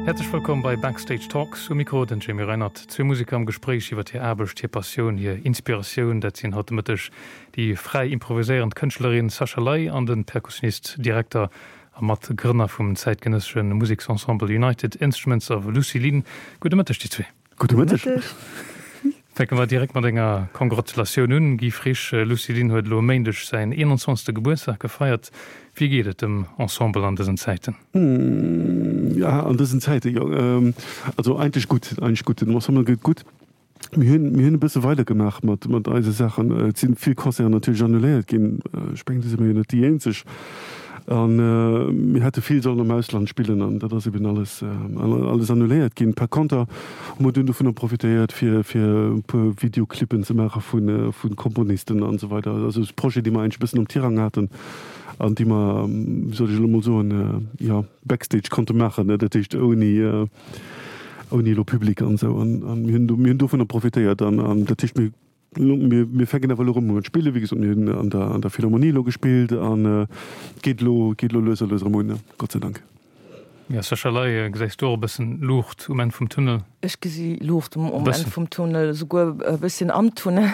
Häerzlech wëllkomm bei Backstage Talks. Um Mikro den Jamie Reinert. Zwee Museker am Gespréich iwwer hir Aarbecht, hir Passioun, hir Inspiratioun. Dat sinn haut de Mëtteg déi fräi improviséierend Kënschtlerin Sascha Ley an de Perkussionist, Direkter a Matgrënner vum zäitgenëssesche Museksensemble United Instruments of Lucilin. Gudde Mëtteg déi zwee. Gudde Mëtteg. Fänke mer direkt mat enger Kongratulatioun un, Guy Frisch. Lucilin huet elo e Méindeg säin 21. Gebuertsdag gefeiert. Wéi geet et dem Ensemble an dësen Zäiten? Ja, an dësen Zäiten, jo. Also eigentlech gutt, eigentlech gutt. Dem Ensemble geet et gutt. Mir hunn, mir hunn e bësse weidergemaach mat, mat eise Saachen. Et si vill Concerten natierlech annuléiert ginn. Ech mengen, do si mer jo net déi eenzeg. An mir hätte vill sollen am Ausland spillen an dat ass eben alles, alles annuléiert ginn. Par conter hu mer dunn dovunner profitéiert, fir, fir e puer Videoclippen ze maache vu, vu Komponisten an esou weider. Also Projete, déi mer eigentlech e bëssen am Tirang haten an déi mer, wéi soll ech elo emol soen, jo, backstage konnte maachen, dat heescht ouni, ouni elo Public an esou. An, an mir hunn, mir hunn dovunner profitéiert an, an dat heescht, mir Mir fänken awer elo erëm un mat spillen. Wéi gesot, mir hunn an der an der Philharmonie elo gespillt an et geet elo geet elo lues a lues erëm un, Gott sei Dank. Jo, Sascha Ley, gesäis du och e bëssen Luucht um Enn vum Tunnel? Ech gesi Luucht um Enn vum Tunnel, esouguer e bësschen am Tunnel.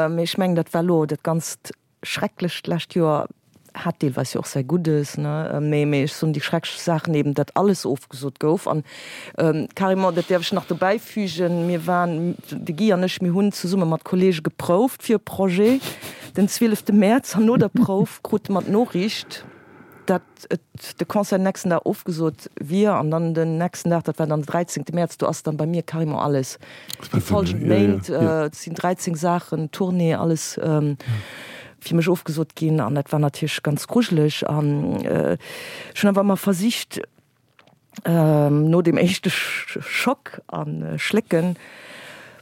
Mee ech mengen, dat war elo dat Ganzt Schrecklecht d'lescht Joer hat deelweis jo och säi Guddes, ne? Mee, mee ech soen déi schrecklech Saachen eben, datt alles ofgesot gouf an carrément, dat däerf ech nach dobäi fügen, mir waren, de Guy an ech, mir hunn zesumme mat Kollege geprouft fir e Projet den 12 Mäerz an no der Prouf krute mer d'Noriicht, dat et de Concert den nächsten Dag ofgesot wier an dann den nächsten Dag, dat war dann den 13. Mäerz, do ass dann bei mir carrément alles déi folgend Méint, et sinn 13 Saachen, Tournée, alles fir mech ofgesot ginn an dat war natierlech ganz grujeleg an ech hunn awer ëmmer versicht, No deem éischte Schock a Schlécken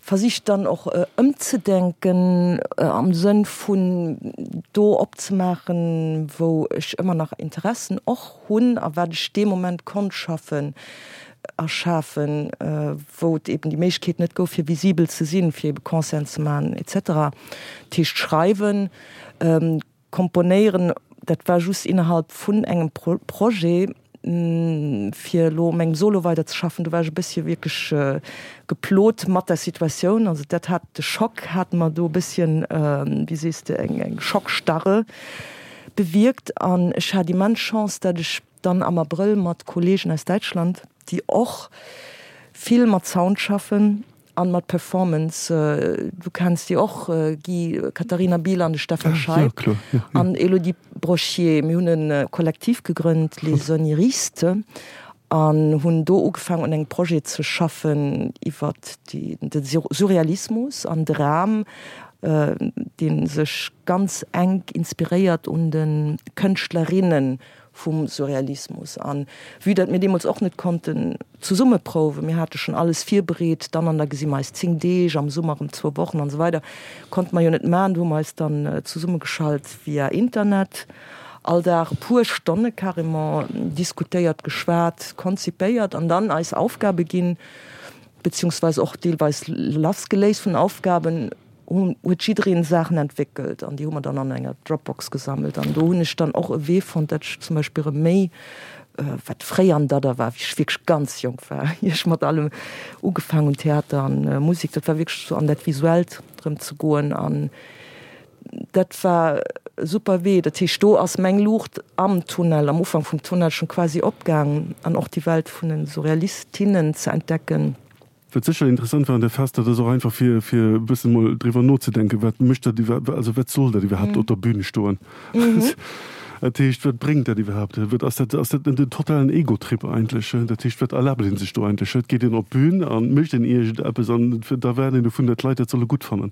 versicht dann och ëmzedenken am Sënn vun do opzemaachen, wou ech ëmmer nach Interessen och hunn a wat ech dee Moment konnt schaffen a schafen, wou et eben déi Méiglechkeet net gouf fir visibel ze sinn, fir ebe Concerten ze maachen et cetera. Dat heescht schreiwen. Komponéieren, dat war just innerhalb vun engem Projet, fir elo u mengem Solo weider ze schaffen. Do war ech e bëssche wierklech geplot mat der Situatioun. Also dat hat, de Schock hat mer do e bësschen, wéi sees de, eng Schockstarre bewierkt. An ech hat immens Chance, dat ech dann am Abrëll mat Kollegen aus Däitschland, déi och vill mat Sound schaffen, An mat Performance, du kenns déi och, Guy, Katharina Biel an de Stefan Scheib an Elodie Brochier. Mir hunn e Kollektiv gegrënnt, Les Oniristes, an hunn do ugefaangen un engem Projet ze schaffen iwwert de Surrealismus an de Ram, dee sech ganz enk inspiréiert un de Kënschtlerinnen vum Surrealismus. An vue dat mir deemools och net konnten zesumme prouwen, mir hate schonn alles virbereet, dann an da gesi mer eis 10 Deeg, am Summer erëm zwou Wochen an esou weider, konnte mer jo net maachen. Do hu mer eis dann zesummegeschalt via Internet, all Dag e puer Stonne carrément diskutéiert, geschwat, konzipéiert an dann eis Aufgabe ginn, beziehungsweise och deelweis lassgeléist vun Aufgaben. huet jiddereen Saachen entwéckelt an déi hu mer dann an enger Dropbox gesammelt an do hunn ech dann och e Wee fonnt, dat ech zum Beispill erëm méi, wat fréier an Dadder war, wéi ech wierklech ganz jonk war, ier ech mat allem ugefaang hunn, Theater an Musek, dat war wierklech sou an dat Visuellt erëm ze goen an dat war e super Wee. Dat heescht, do ass meng Luucht am Tunnel, am Ufank vum Tunnel schonn quasi opgaang an och déi Welt vun den Surrealistinnen ze entdecken. Wat sécher interessant war an där Phas, dat ass och einfach fir, fir e bëssen emol driwwer nozedenken, wat mécht dat iwwer, also wat soll dat iwwerhaapt op der Bühn stoen? Dat heescht, wat bréngt dat iwwerhaapt? Wat ass dat, ass dat net en totalen Egotrip eigentlech? Dat heescht, wat erlaabt ee sech do eigentlech? Et geet een op d'Bühn a mécht een iergendeppes an da erwaart een dovun, datt d'Leit dat solle gutt fannen.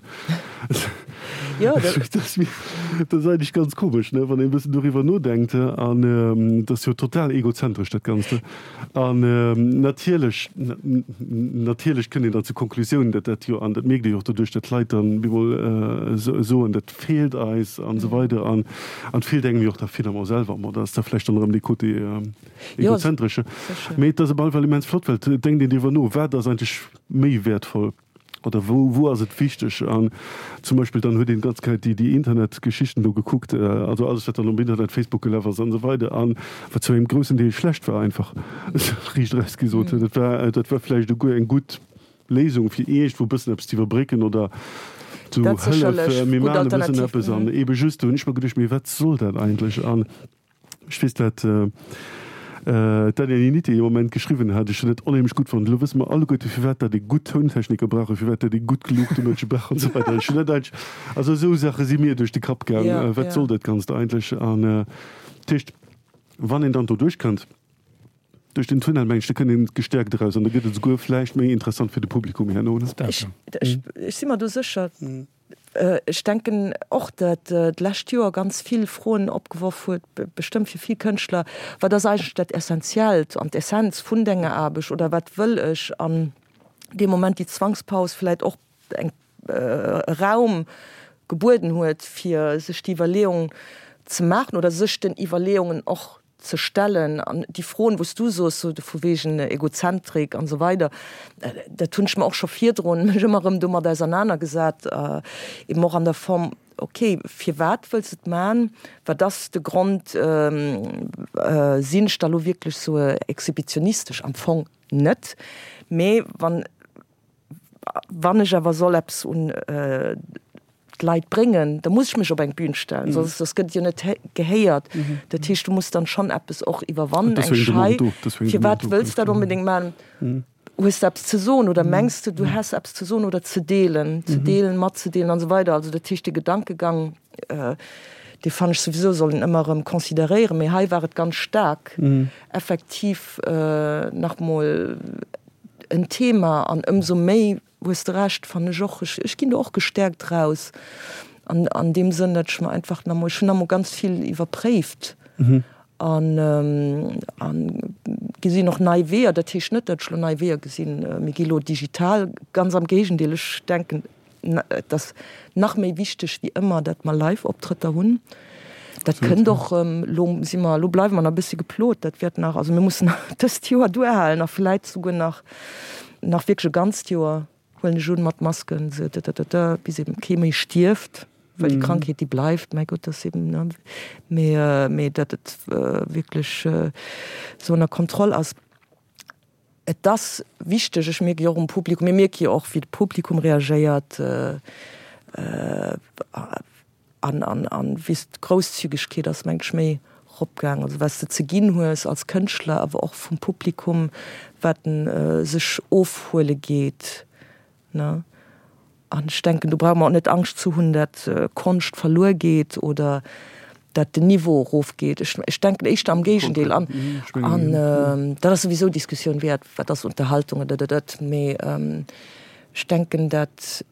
Dat ass eigentlech ganz komesch, ne, wann een e bëssen doriwwer nodenkt. An et ass jo total egozentresch, dat Ganzt. An natierlech, natierlech kënnt een dann zur Konklusioun, datt dat jo, an dat mierkt ee jo och doduerch, datt d'Leit dann bemol soen, dat feelt eis an esou weider an et feelt engem jo och da finalement selwer. Bon, dat ass da vläicht dann erëm dee Côté egozentresche. Mee et ass op alle Fall immens flott, well et denkt een driwwer no, wat ass eigentlech méi wäertvoll. Oder wou, wou ass et wichteg? An zum Beispill dann huet een d'ganz Zäit déi, déi Internetgeschichten do gekuckt, also alles wat dann um Internet, Facebook gelaf ass an esou weider, an wat zu engem groussen Deel schlecht war einfach, riicht eraus gesot. Dat war, dat war vläicht esouguer eng gutt Léisung fir iergendwou e bëssen eppes ze iwwerbrécken oder zu Dat hëllef, sécherlech, mir gutt maachen e bëssen Alternativ. eppes an eebe just, do hunn ech mer geduecht, mee wat soll dat eigentlech? An Ech weess dat d'Daniel Initi ee Moment geschriwwen hat, ech hunn dat onheemlech gutt fonnt, elo wësse mer alleguerte firwat dat ee gutt Tountechniker brauch a firwat dat ee gutt Luuchtemënsche brauch an esou weider. Ech hunn dat eigentlech, also esou Saache si mir duerch de Kapp gaang, wat soll dat Ganzt eigentlech? An dat heescht, wann een dann do duerchkënnt, duerch den Tunnel, meng ech, da kënnt een gestäerkt eraus an da gëtt et esouguer vläicht méi interessant fir de Publikum herno. Ech si mer do sécher. Ech denken och, datt d'lescht Joer ganz vill Froen opgeworf huet, bestëmmt fir vill Kënschtler, Wat ass eigentlech dat Essentiellt an d'Essenz vun denger Aarbecht oder wat wëll ech? An dee Moment déi Zwangspaus vläicht och eng e Raum gebueden huet, fir sech déi Iwwerleeung ze maachen oder sech den Iwwerleeungen och ze stellen an déi Froen, wou s du soos, sou vu wegen Egozentrik an esou weider, dat hunn ech mer och scho virdrun mech ëmmer erëm domat ausernanergesat, eben och an der Form, ok, firwat wëlls de et man, wat ass de Grond, sinn ech da lo wierklech sou exhibitionistesch? Am Fong net, mee wann Wann ech awer soll eppes un d'Leit bréngen, da muss ech mech op eng Bühn stellen, soss soss gëtt et jo net gehéiert. Dat heescht, du muss dann schonn eppes och iwwerwannen, eng Schei. Firwat wëlls de dat onbedéngt maachen? Hues de eppes ze soen oder mengs de, du häss eppes ze soen oder ze deelen, ze deelen, matzedeelen an esou weider. Also dat heescht, dee Gedankegang, dee fannen ech souwisou, soll een ëmmer erëm consideréieren, mee hei war et ganz staark effektiv nach mol en Thema an ëmsou méi, hues de Recht, fannen ech och, ech ginn do och gestäerkt raus an an deem Sënn, datt ech mer einfach nach emol, ech hunn nach emol ganz vill iwwerpréift an an gesinn och nei Weeër. Dat heescht net, datt ech elo nei Weeër gesinn, mir gi elo digital, ganz am Géigendeel, ech denken, Et ass nach méi wichteg wéi ëmmer, datt mer Live-Optrëtter hunn. Dat kënnt och erëm. Elo si mer, elo bleiwe mer nach e bëssi geplot. Dat wäert nach, also mir mussen dëst Joer duerhalen a vläit souguer nach, nach wierklech e ganzt Joer, huelen ech un, mat Masken, bis eben kee méi stierft, well déi Krankheet, déi bleift, mäi Gott, dat ass eben, ne, mee, mee datt et wierklech esou ënner Kontroll ass. Et ass wichteg, ech mierke jo och um Publikum, mir mierke jo och wéi de Publikum reagéiert an an wéi d'Grousszügegkeet ass mengen ech méi eropgaang, also wat s de ze ginn hues als Kënschtler, awer och vum Publikum wat en sech ofhuele geet. Ne? An ech denken, do brauche mer och net Angscht ze hunn, dat Konscht verluer geet oder dat den Niveau erofgeet. Ech, ech denken éischter am Géigendeel. An, an dat ass souwisou Diskussioun wäert, wat ass Unterhaltung oder dat, dat. Mee ech denken, dat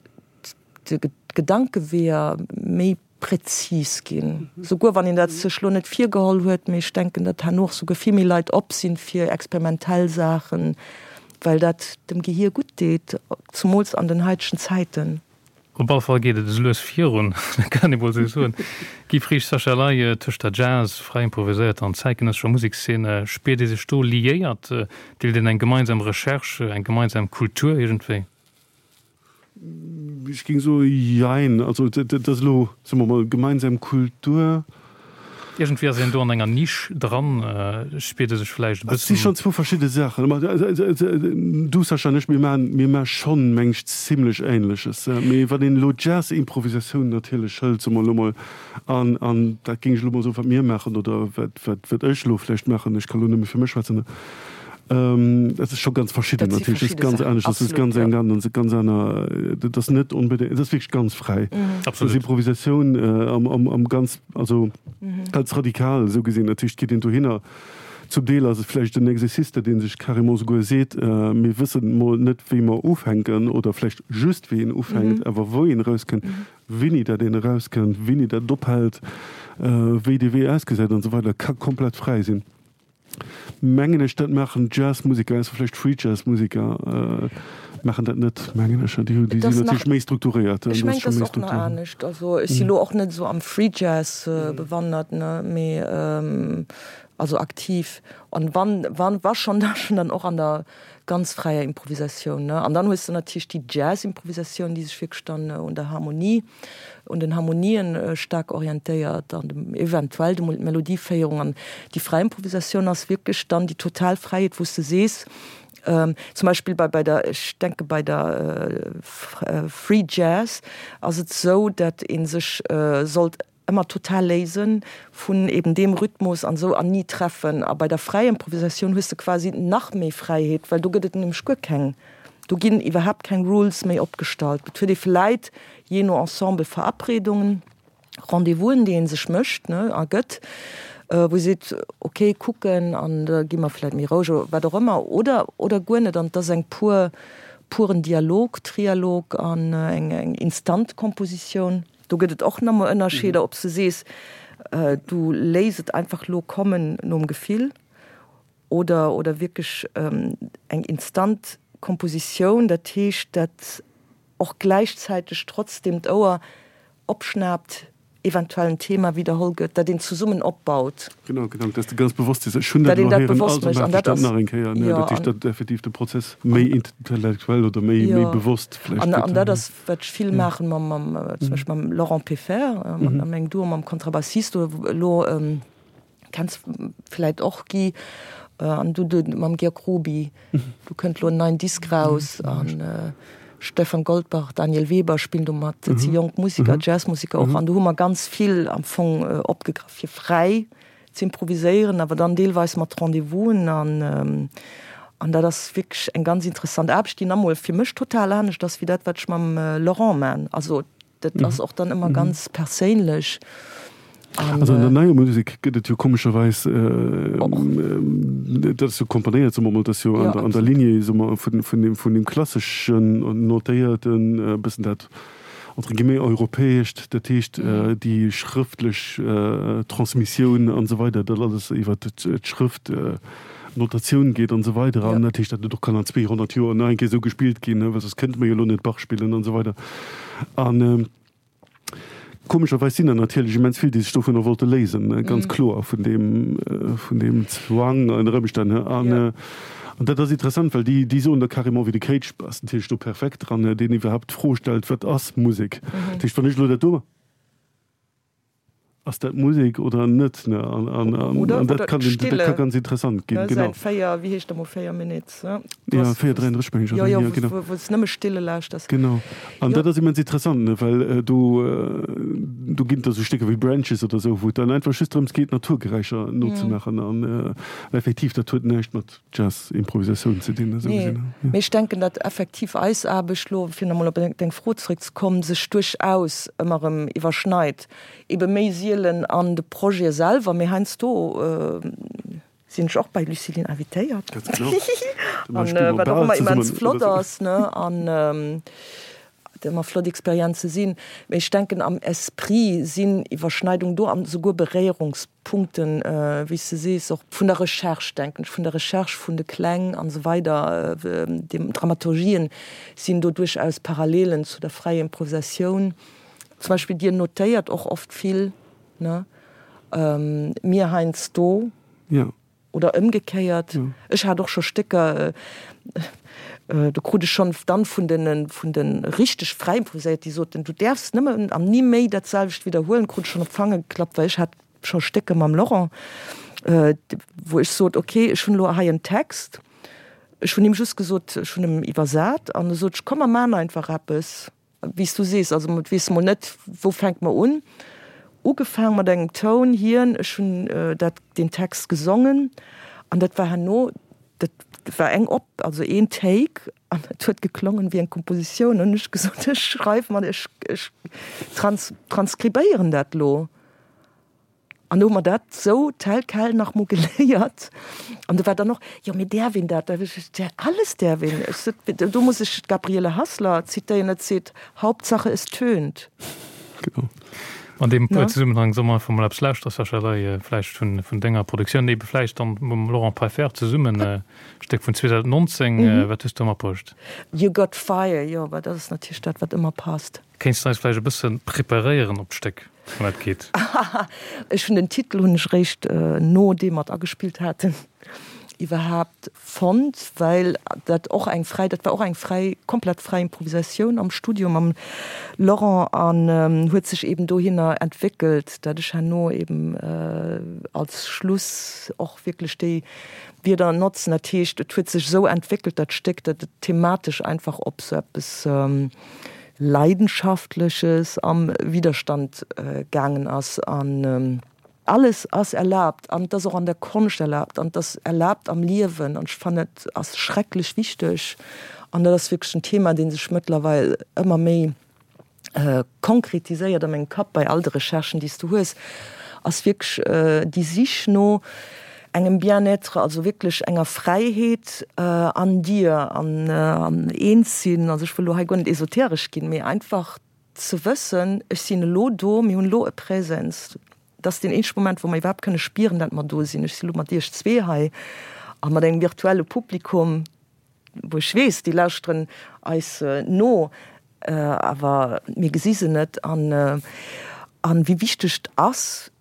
d'Gedankeweeër méi präzis ginn, souguer wann een dat sech lo net virgeholl huet, mee ech denken, datt herno och souguer vill méi Leit op sinn fir experimentell Saachen, well dat dem Gehier gutt deet, zumools an den haitegen Zäiten. Op alle Fall geet et esou lues virun, dat kann ee mol esou soen. Guy Frisch, Sascha Ley, tëscht der Jazz, fräi improviséierter an zäitgenëssescher Musekszene, spiert ee sech do liéiert? Deelt een eng gemeinsam Recherche, eng gemeinsam Kultur iergendwéi? Ech géing soe jein. Also dat ass elo, soe mer mol, gemeinsam Kultur. Iergendwéi ass een do an enger Nisch dran, spiert ee sech vläicht e Et si bëssen. schonn zwou verschidde Saachen. Du, Sascha, an ech, mir maachen, mir maache schonn, meng ech, zimlech Ähnleches. Mee wann een elo Jazz-Improvisatioun natierlech hëlt, soe mer elo mol, an, an dat géing ech elo mol soen, wat mir maachen oder wat, wat, wat ech elo vläicht maachen, ech ka elo nëmme fir mech schwätzen, Dat ass scho ganz verschidden Dat si natierlech. Dat ass verschidde ganz Saachen, anescht. Dat ass absolut, ganz ja. eng ganz, ganz aner, dat ass net onbedéngt, dat ass wierklech ganz fräi. Dat ass Absolut. Improvisatioun am, am, am ganz, also ganz radikal esou gesinn. Dat heescht, et geet een dohinner, zum Deel ass et vläicht en Exercice, dat ee sech carrément souguer seet, mir wëssen mol net wéi mer ufänken oder vläicht just wéi een ufänkt, awer wou een erauskënnt, wéini dat een erauskënnt, wéini dat ophält, wéi dee Wee ausgesäit an esou weider, ka komplett fräi sinn. Mengen ech, dat maachen Jazzmuseker, ausser vläicht Free-Jazz-Museker maachen dat net, mengen ech. Déi hu, déi Et ass sinn nach, natierlech méi strukturéiert. ech Do ass mengen, et scho ass méi och nach Struktur. anescht. Also ech si lo och net esou am Free-Jazz bewandert, ne, mee. Also aktiv. An wann, wann, wa schon, da schon dann och an der ganz fräier Improvisatioun, ne. An dann hues de natierlech déi Jazz-Improvisatioun, déi sech wierklech dann un der Harmonie, un den Harmonien staark orientéiert an dem eventuell de Melodieféierung. An déi fräi Improvisatioun ass wierklech dann déi total Fräiheet, wou s de sees, zum Beispill bei, bei der, ech denke bei der Free Jazz ass et esou, dat ee sech sollt ëmmer total léisen vun eben deem Rhythmus an esou an ni treffen. A bei der fräier Improvisatioun hues de quasi nach méi Fräiheet, well do gëtt et nämlech guer keng, do ginn iwwerhaapt keng Rules méi opgestallt. Et huet ee vläit jee no Ensemble Verabredungen, Rendez-vousen, déi ee sech mécht, ne, a gëtt, wou ee seet, ok, kucken an da gi mer vläit méi roueg oder wat och ëmmer oder oder guer net. An et ass eng pur puren Dialog, Trialog an eng eng instant Kompositioun. Do gëtt et och nach emol Ënnerscheeder, ob s de sees, du léiss et einfach lo kommen nom Gefill oder, oder wierklech eng instant Kompositioun, dat heescht, dat och gläichzäiteg trotzdem d'Ouer opschnaapt, eventuell en Thema widderholl gëtt, dat een zesummen opbaut. Genau, genau, dass de ganz bewosst sees, ech hunn dat elo héieren, also maachen ech dat nach eng Kéier. Dat heescht, datt effektiv de Prozess méi intellektuell oder méi, méi bewosst vläicht gëtt. An dat ass wat ech vill maachen mam, mam, zum Beispill mam Laurent Peffer, a mengem Duo mam Kontrabassist, oder elo kenns vläit och Guy, an du du mam Georg Ruby, do kënnt elo en neien Disk raus an Stefan Goldbach, Daniel Weber spillen do mat, dat si jonk Musiker, Jazzmusiker och, an do hu mer ganz vill am Fong opgegraff fir fräi z'improviséieren, awer dann deelweis mat Rendez-vousen an an dat ass wierklech eng ganz interessant Aarbecht, déi nach emol fir mech total anescht ass wéi dat, wat ech mam Laurent man. Also dat ass och dann ëmmer ganz perséinlech. An, also an der neier Musek gëtt et jo komescherweis, dat ass jo komponéiert, soe mer emol, dat ass jo an der Lignée, soe mer, vun vun vun deem klasseschen notéierten, e bëssen dat entre guillemets europäescht, dat heescht déi schrëftlech Transmissioun an esou weider, dat alles iwwer d'Schrëft, Notatioun geet an esou weider an dat heescht, dat et och kann an 200 Joer nach eng Kéier esou gespillt ginn, well soss kënnte mer jo elo net Bach spillen an esou weider. An komescherweis sinn der natierlech immens vill, déi sech dovunner wollte léisen, ganz kloer vun deem, vun deem Zwang ënner Ëmstänn. An An dat ass interessant, well déi, déi soen da carrément, wéi de Cage ass natierlech do perfekt dran, deen iwwerhaapt d'Fro stellt, Wat ass Musek? Dat heescht, wann ech elo dat do. Ass dat Musek oder net? Ne? An, an, an, oder, an dat kann, dat kann ganz interessant ginn. Genau. 4, wéi heescht emol 4 Minutes? Ne? Ja, 4, 33 meng ech. Ja, ja, genau. Wou, wou s nëmme Stille lauschters. Genau. An ja. dat ass immens interessant, ne? Well äh, do, äh, do ginn et da sou Stécker wéi Branches oder sou, wou et dann einfach just drëms geet, Naturgeräischer nozemaachen. An äh, effektiv, dat huet näischt mat Jazz-Improvisatioun ze dinn. Esou gesinn. Nee. Mee ech denken, datt effektiv eis Aarbecht lo, fir nach emol op deng Fro zréckzekommen, sech duerchaus ëmmer erëm iwwerschneit. Ebe méi sielen an de Projete selwer, mee heiansdo sinn ech och bei Lucilin invitéiert. Ganz genau. An wat och ëmmer immens flott ass, ne, an et ëmmer flott Experienze sinn. Mee ech denken, am Esprit sinn Iwwerschneidungen do an esouguer Beréierungspunkten, wéi s de sees, och vun der Recherche, denken ech, vun der Recherche vun de Kläng an esou weider, den Dramaturgien sinn do duerchaus Parallelen zu der fräier Improvisatioun. Zum Beispill Dir notéiert och oft vill, ne? Mir heiansdo. Jo. Oder ëmgekéiert. Ech hat och scho Stécker, do krut ech schonn dann vun den, vun de richteg fräi improviséiert, déi soten, du däerfs nëmmen an ni méi dat selwecht widderhuelen, krut ech schonn op d'Fanger geklappt, well ech hat scho Stécker mam Laurent, wou ech sot, ok, ech hunn elo hei en Text, ech hunn him just gesot, ech hunn em iwwersat an e sot ech, komm mer maachen einfach eppes. Wéi s du sees, also et weess mol net, wou fänke mer un. Ugefaang mat engem Toun, hien, ech hunn dat, deen Text gesongen an dat war herno, dat war eng op, also een Take an et huet geklongen wéi eng Kompositioun. An hunn ech gesot, ech schreiw mat, ech, ech trans, transkribéieren dat elo. An do hu mer dat sou tel quel nach mol geléiert. An do war dann och, jo mee däerf een dat? Da hu ech gesot, ja alles däerf een. Ech sot, do muss ech d'Gabriele Hassler zitéieren, dat seet, Hauptsache es tönt. Genau. An deem Zesummenhang solle mer einfach mol eppes lauschteren, Sascha Ley, vläicht vun denger Produktioun, ebe vläicht dann mam Laurent Peiffer zesummen, e Stéck vun 2019. Wat hues du matbruecht? You Got Fire, jo, well dat ass natierlech dat, wat ëmmer passt. Kéints de eis vläicht e bësse preparéieren op d'Stéck, wann dat geet? Ech hunn den Titel hunn ech réischt nodeem mer et agespillt haten iwwerhaapt fonnt, well dat och eng fräi, dat war och eng fräi, komplett fräi Improvisatioun am Studio mam Laurent an huet sech eben dohinner entwéckelt, dat ech herno eben als Schluss och wierklech déi Wierder notzen. Dat heescht, et huet sech esou entwéckelt dat Stéck, dat et thematesch einfach op sou eppes Leidenschaftleches am Widerstand gaangen ass an. Alles ass erlaabt an et ass och an der Konscht erlaabt an et ass erlaabt am Liewen an ech fannen et ass schrecklech wichteg an dat ass wierklech en Thema dee sech mëttlerweil ëmmer méi konkretiséiert a mengem Kapp bei all de Recherchen déi s du hues, ass wierklech déi Sich no engem Bien-être, also wierklech enger Fräiheet an dir an eens sinn, also ech wëll elo hei guer net esoteresch ginn, mee einfach Ze wëssen, ech sinn elo do, mir hunn elo e Präsens, dat ass deen eenzege Moment, wou mer iwwerhaapt kënne spieren, dat mer do sinn. Ech si elo mat Iech zwee hei a mat engem virtuelle Publikum, wou ech weess, déi lauschteren eis no, awer mir gesi se net. An wéi wichteg et ass,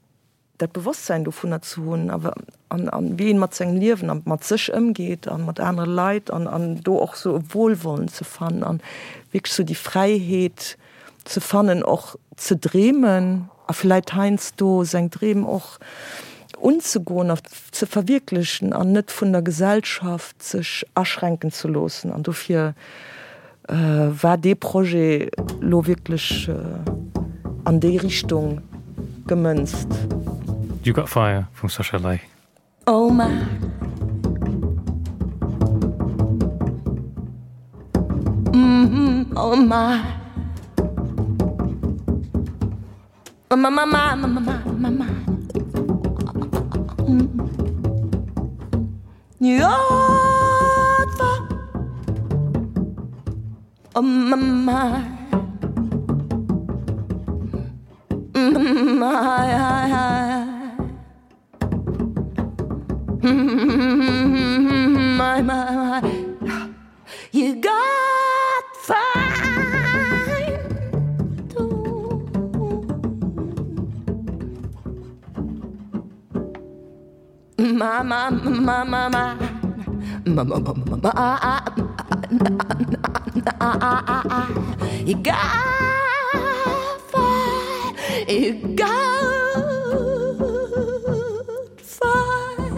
dat Bewosstsäin dovunner ze hunn a an wéi een mat sengem Liewen a mat sech ëmgeet a mat anere Leit an an do och sou e Wohlwollen ze fannen an wierklech sou déi Fräiheet ze fannen och ze dreemen a vläit heiansdo seng Dreem och unzegoen a ze verwierklechen an net vun der Gesellschaft sech aschränken ze loossen an dofir war dee Projet lo wierklech an déi Richtung gemënzt. You Got Fire vum Sascha Ley. Oh my. Oh my. Oh my my my my my my. You got fire. Oh my my. My my my. You got fire too. My my my my my. My my my my my. You got fire. You got fire.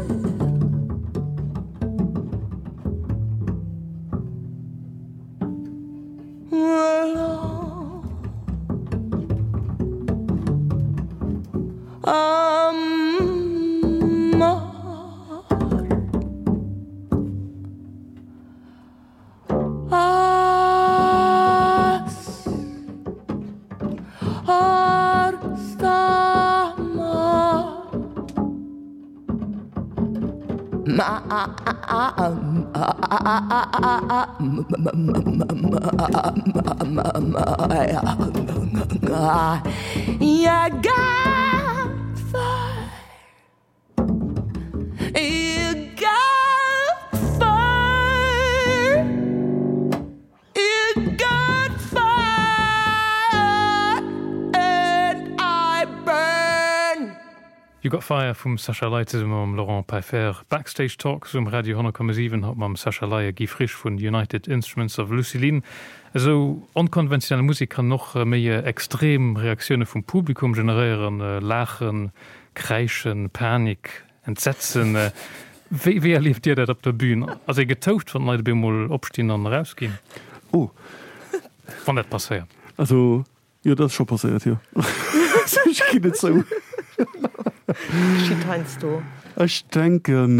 You Got Fire vum Sascha Ley zesumme mam Laurent Peiffer. Backstage Talks um Radio 10,7, haut mam Sascha Ley a Guy Frisch vun United Instruments of Lucilin. Esou onkonventionell Musek kann och méi extrem Reaktioune vum Publikum generéieren, Laachen, Kräischen, Panik, Entsetzen. Wéi wéi erlieft Dir dat op der Bühn? Ass ee getoucht, wann d'Leit op eemol opstinn an erausginn? Oh. Wann dat passéiert. Also Jo, dat ass scho passéiert, jo. Ech ginn et zou. Geschitt heiansdo. Ech denken,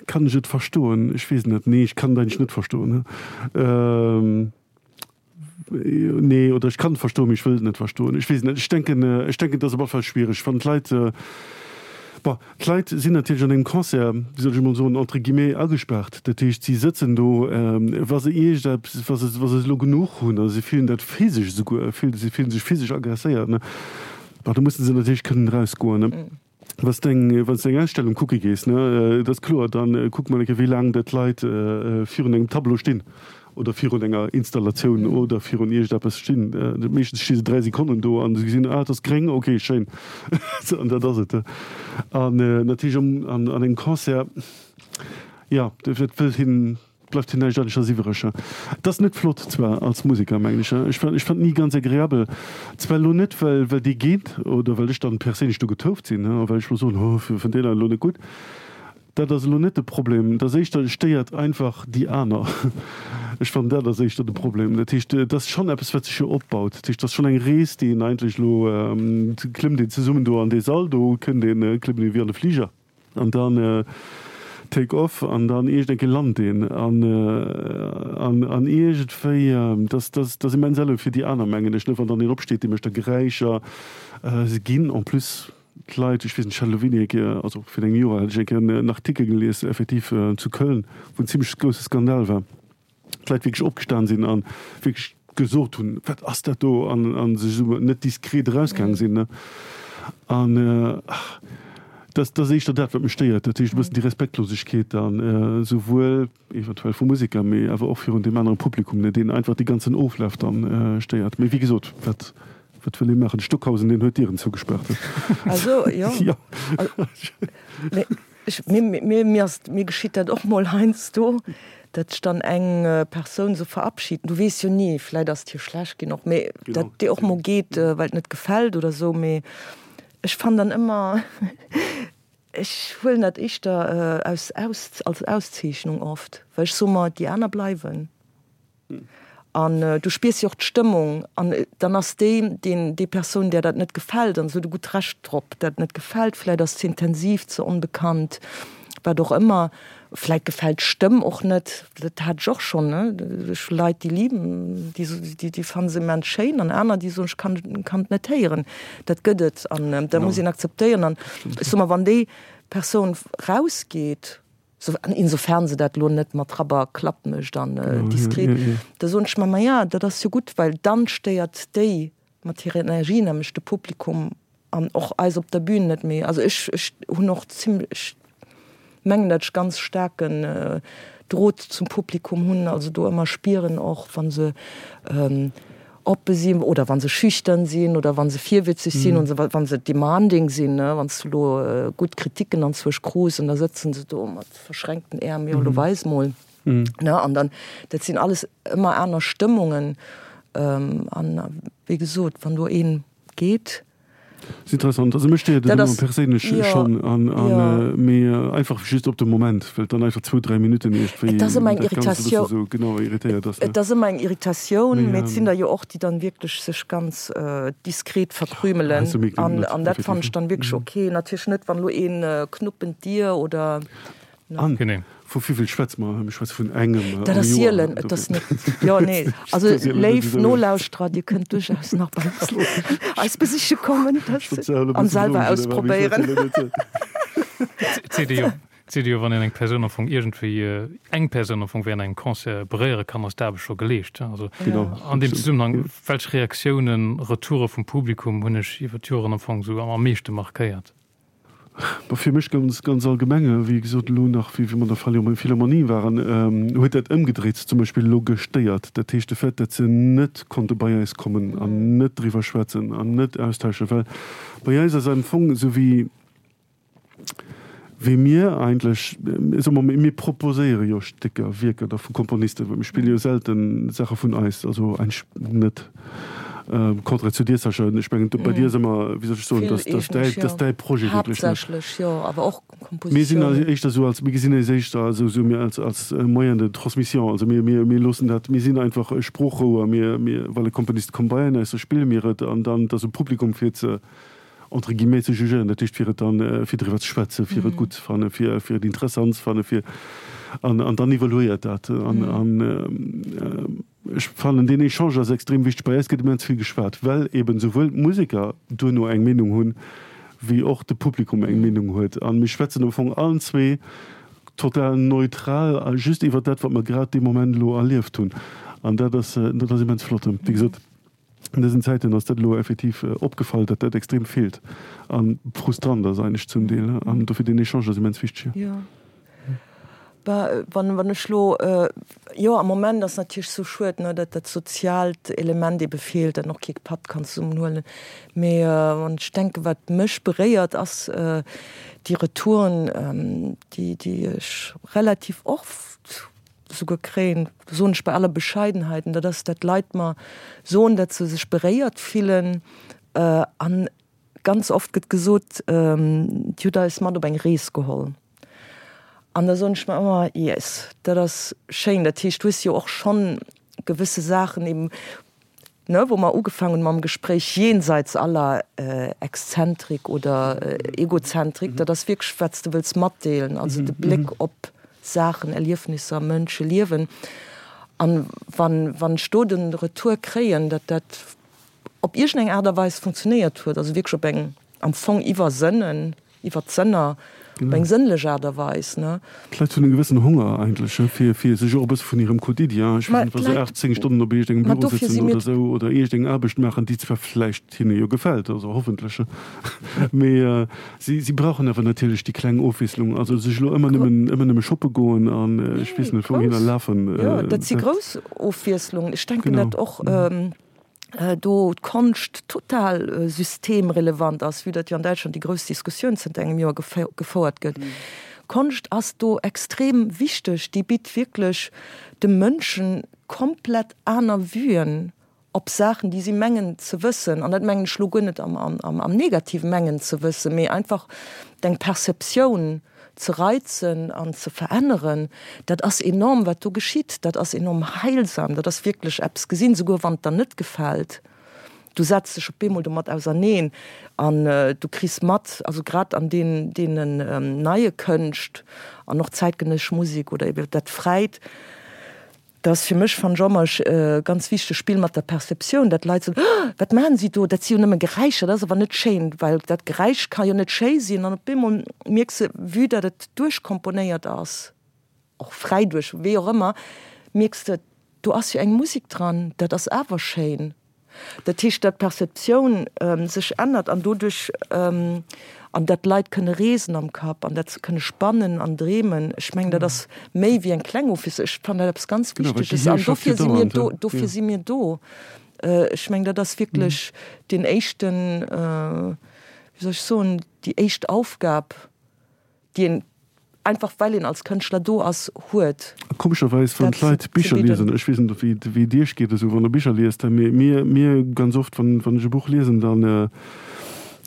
kann ech et verstoen? Ech weess et net. Nee, ech kann et eigentlech net verstoen. Nee, oder ech kann et verstoen, mee ech wëll et net verstoen. Ech weess et net. Ech denken, ech denken, et ass op alle Fall schwiereg, wann d'Leit. Bon, d'Leit sinn natierlech an engem Concert, wéi soll ech emol soen, entre guillemets agespaart. Dat heescht, si sëtzen do, wa se iergendeppes, wa se, wa se elo genuch hunn a se fillen dat physesch esouguer, si fillen sech physesch agresséiert, ne, bon, da musse se natierlech kënnen erausgoen, ne. Wa s de eng, wann s de eng Ausstellung kucke gees, ne, dat ass kloer, da kuckt man eng Kéier, wéi laang dat d'Leit virun engem Tableau stinn oder virun enger Installatioun oder virun iergendeppes stinn. Meeschtens sti se 3 Sekonnen do an se gesinn, ah, et ass gréng, okay, schéin. An dat ass et. An natierlech an engem Concert, jo, dat wëllt hien, bleift hir näischt aneschters iwwereg. Et ass net flott zwar als Museker, mengen ech. Ech ech fand ni ganz agreabel. Zwar elo net, well well dee geet oder well ech dann perséinlech do getouft sinn, a well ech elo soen, oh, fënnt deen elo net gutt. Dat ass elo net de Problem. Et ass éischter, et stéiert einfach déi aner. Ech fannen, dat ass éischter de Problem. Dat heescht, et ass schonn eppes, wat sech jo opbaut. Dat heescht, et ass schonn eng Rees, déi een eigentlech elo, klëmmt een zesummen do an dee Sall do, kënnt een, klëmmt een wéi an de Fliger an dann take off an dann iergend eng Kéier lant een an, an, an iergendwéi, dat, dat, dat ass immens elo fir déi aner, mengen ech, ne, wann dann een opsteet, dee mécht da Geräischer, se ginn en plus. D'Leit, ech weess net, ech hat elo wéini eng Kéier, also virun engem Joer hat ech eng Kéier en Artikel gelies, effektiv zu Köln, wou en zimlech grousse Skandal war, d'Leit wierklech opgestan sinn a wierklech gesot hunn, wat ass dat do, an a sech esou net diskret erausgaang sinn, ne. An dat ass éischter dat, wat mech stéiert, dat heescht e bëssen déi Respektlosegkeet dann, esouwuel eventuell vu Museker, mee awer och virun deem anere Publikum, ne, deen einfach dee ganzen Oflaf dann stéiert. Mee wéi gesot, wat Wat wëll ee maachen? De Stockhausen, deen huet d'Dieren zougespaart. Also, jo. Jo. Mee ech, mir, mir, mir ass, mir geschitt dat och mol heiansdo, datt ech dann eng Persoun esou verabschieden. Du weess jo ni, vläit ass et hir schlecht ginn och, mee datt déi och mol geet, well et net gefält oder esou. Mee ech fannen dann ëmmer, ech huelen dat éischter aus, aus, als Auszeechnung oft, well ech soe mer, déi aner bleiwen. An du spiers jo och d'Stëmmung an dann ass déi, deen, déi Persoun, där dat net gefält, an se huet e gutt Recht drop, dat net gefält, vläit ass ze intensiv, ze onbekannt, wat och ëmmer, vläit gefält d'Stëmm och net, dat hat ech och schonn, ne, ech hu Leit, déi liben, déi, déi, déi fanne se immens schéin an aner, déi soen, ech kann, kann et net héieren. Dat gëtt et an dat muss een akzeptéieren an ech soe mer, wann déi Persoun rausgeet, Insofern se dat elo net mat Rapp a Klapp mécht an diskret, da soen ech mer, maja, dat ass jo gutt, well dann stéiert déi mat hirer Energie nämlech de Publikum an och eis op der Bühn net méi. Also ech, ech hunn och zimlech, ech mengen, datt ech ganz staarken Drot zum Publikum hunn, also do ëmmer spieren och, wa se oppe sinn oder wa se schüchtern sinn oder wa se virwitzeg sinn und wa se demanding sinn, ne, wann s du elo gutt Kritiken anzwousch krus an da sëtzen se do mat verschränkten Äerm, jo elo weis mol, ne, an dann, dat sinn alles ëmmer aner Stëmmungen an wéi gesot, wann do een geet. Ass interessant. Also mech stéiert et ëmmer perséinlech schonn an mee einfach just op de Moment, well et dann einfach zwou, dräi Minutten iergendwéi Et ass ëmmer eng dat Ganzt e bësse sou genau irritéiert ass. Et ass ëmmer eng Irritatioun, mee et sinn der jo och, déi dann wierklech sech ganz diskret verkrümelen an an dat fannen ech dann wierklech ok. Natierlech net, wann elo een knuppen d'Dier oder. An vu wéivill schwätze mer? Mir schwätze vun engem am Dat ass sielen, et ass net, jo, nee. Also léif Nolauschterer, Dir kënnt duerchaus nach bei eis eis besiche kommen an selwer ausprobéieren. Et seet ee jo, et seet ee jo, wann een eng Persoun am Fong iergendwéi, eng Persoun am Fong während engem Concert beréiere kann, ass d'Aarbecht scho geleescht. Also an deem Zesummenhang, welch Reaktiounen, Retoure vum Publikum hunn Iech iwwer d'Joren am Fong esou am meeschte markéiert? Bon, fir mech ganz, ganz allgemeng, wéi gesot, elo nach, wéi mer an der Philharmonie waren, huet dat ëmgedréit zum Beispill elo gestéiert. Dat heescht, de Fait, datt se net konnte bei eis kommen an net driwwer schwätzen an net austauschen, well bei eis ass am Fong esou wéi, wéi mir eigentlech, soe mer, mir proposéiere jo Stécker, Wierker da vu Komponisten, well mir spille jo selten Saache vun eis, also eigentlech net. Contraire zu dir, Sascha, ech mengen, bei dir ass ëmmer, wéi soll ech soen, dass, dass däi, dass däi Projet wierklech net. Haaptsächlech, jo, awer och Kompositiounen. Mir sinn also éischter esou als, mir gesinn eis éischter esou, esou mir als, als Moyen de transmission. Also mir, mir, mir loossen dat, mir sinn einfach e Sproochrouer. Mir, mir, well e Komponist kommt bei eis, da spille mir et an dann, et ass um Publikum fir ze, entre guillemets, ze jugéieren, dat heescht fir et dann, fir driwwer ze schwätzen, fir et gutt ze fannen, fir, fir et interessant ze fannen, fir, an, an dann evaluéiert dat an, an. Ech fannen, deen Echange ass extrem wichteg. Bei eis gëtt immens vill geschwat, well eben souwuel d'Museker duerno eng Meenung hunn, wéi och de Publikum eng Meenung huet. A mir schwätzen am Fong allen zwee total neutral a just iwwer dat, wat mer grad dee Moment elo erlieft hunn. An dat ass, dat ass immens flott. Wéi gesot, an dësen Zäiten ass dat elo effektiv opgefall, datt dat extrem feelt a frustrant ass eigentlech zum Deel. An dofir deen Echange ass immens wichteg. Jo. Wann, wann ech lo, jo am Moment ass natierlech sou schued, ne, datt dat soziaalt Element ebe feelt, datt een och kee Patt kann zesummen huelen. Mee wann ech denken, wat mech beréiert, ass déi Retouren, déi, déi ech relativ oft souguer kréien, soen ech bei aller Bescheidenheit, an dat ass, datt Leit mer soen, datt se sech beréiert fillen an ganz oft gëtt gesot, Dir hutt eis mat op eng Rees geholl. An da soen ech mer ëmmer, Yes, dat ass schéin. Dat heescht, du hues jo och schonn gewësse Saachen eben, ne, wou mer ugefaangen hunn mam Gespréich, jenseits aller Exzentrik oder Egozentrik, dat ass wierklech, wat s de wëlls matdeelen, also de Bléck op Saachen, Erliefnisser, Mënsche, Liewen. An wann, wann ech do de Retour kréien, datt dat op iergendeng Aart a Weis funktionéiert huet, also wierklech op eng am Fong iwwer Sënnen, iwwer d'Sënner, op eng sënnlech Aart a Weis, ne? D'Leit hunn e gewëssen Honger eigentlech, fir, fir sech och e bësse vun hirem Quotidien, ech weess net, wa se 8, 10 Stonnen op iergendengem Büro sëtzen oder esou oder iergendeng Aarbecht maachen, déi zwar vläicht hinne jo gefält, also hoffentlech, mee si, si brauchen awer natierlech déi kleng Ofwiesslung. Also sech elo ëmmer nëmmen, ëmmer nëmme shoppe goen an ech weess net wouhinner lafen, Jo, dat si grouss Ofwiesslungen. Ech denken dat och. do d'Konscht total systemrelevant ass, vue datt jo an Däitschland déi grouss Diskussioun zënter engem Joer gefouert gëtt. Konscht ass do extrem wichteg, déi bitt wierklech de Mënschen komplett aner Vuen op Saachen, déi si mengen ze wëssen. An dat mengen ech elo guer net am Negativen, mengen ze wëssen, mee einfach deng Perceptioun ze reizen an ze veränneren, dat ass enorm, wat do geschitt. Dat ass enorm heilsam. Dat ass wierklech eppes gesinn, souguer wann et der net gefält. Du setz dech op eemol domat auserneen an du kriss mat, also grad an deenen deenen neie Kënscht an och zäitgenëssesch Musek oder ebe dat Fräit, Dat ass fir mech, fannen ech ëmmer, e ganz wichtegt Spill mat der Perceptioun, dat d'Leit soen, Oh, wat maachen si do, dat si jo nëmme Geräischer, dat ass awer net schéin, well dat Geräisch ka jo net schéi sinn. An op eemol mierks de, vue dat et duerchkomponéiert ass, och fräi duerch, wéi och ëmmer, mierks de, do ass jo eng Musek dran, dat ass awer schéin. Dat heescht, datt d'Perceptioun sech ännert an doduerch, an datt d'Leit kënne reesen am Kapp an dat se kënne spannen an dreemen. Ech mengen, dat ass méi wéi eng kleng Office. Ech fannen dat eppes ganz Wichteges an dofir si mir do, dofir si mir do. Ech mengen, dat ass wierklech deen éischten, wéi soll ech soen, déi éischt Aufgab. déi een einfach well een als Kënschtler do ass, huet. Komescherweis, wann d'Leit Bicher liesen, ech weess net wéi wéi et iech geet esou wann der Bicher liest, mee mir mir ganz oft wann wann ech e Buch liesen, dann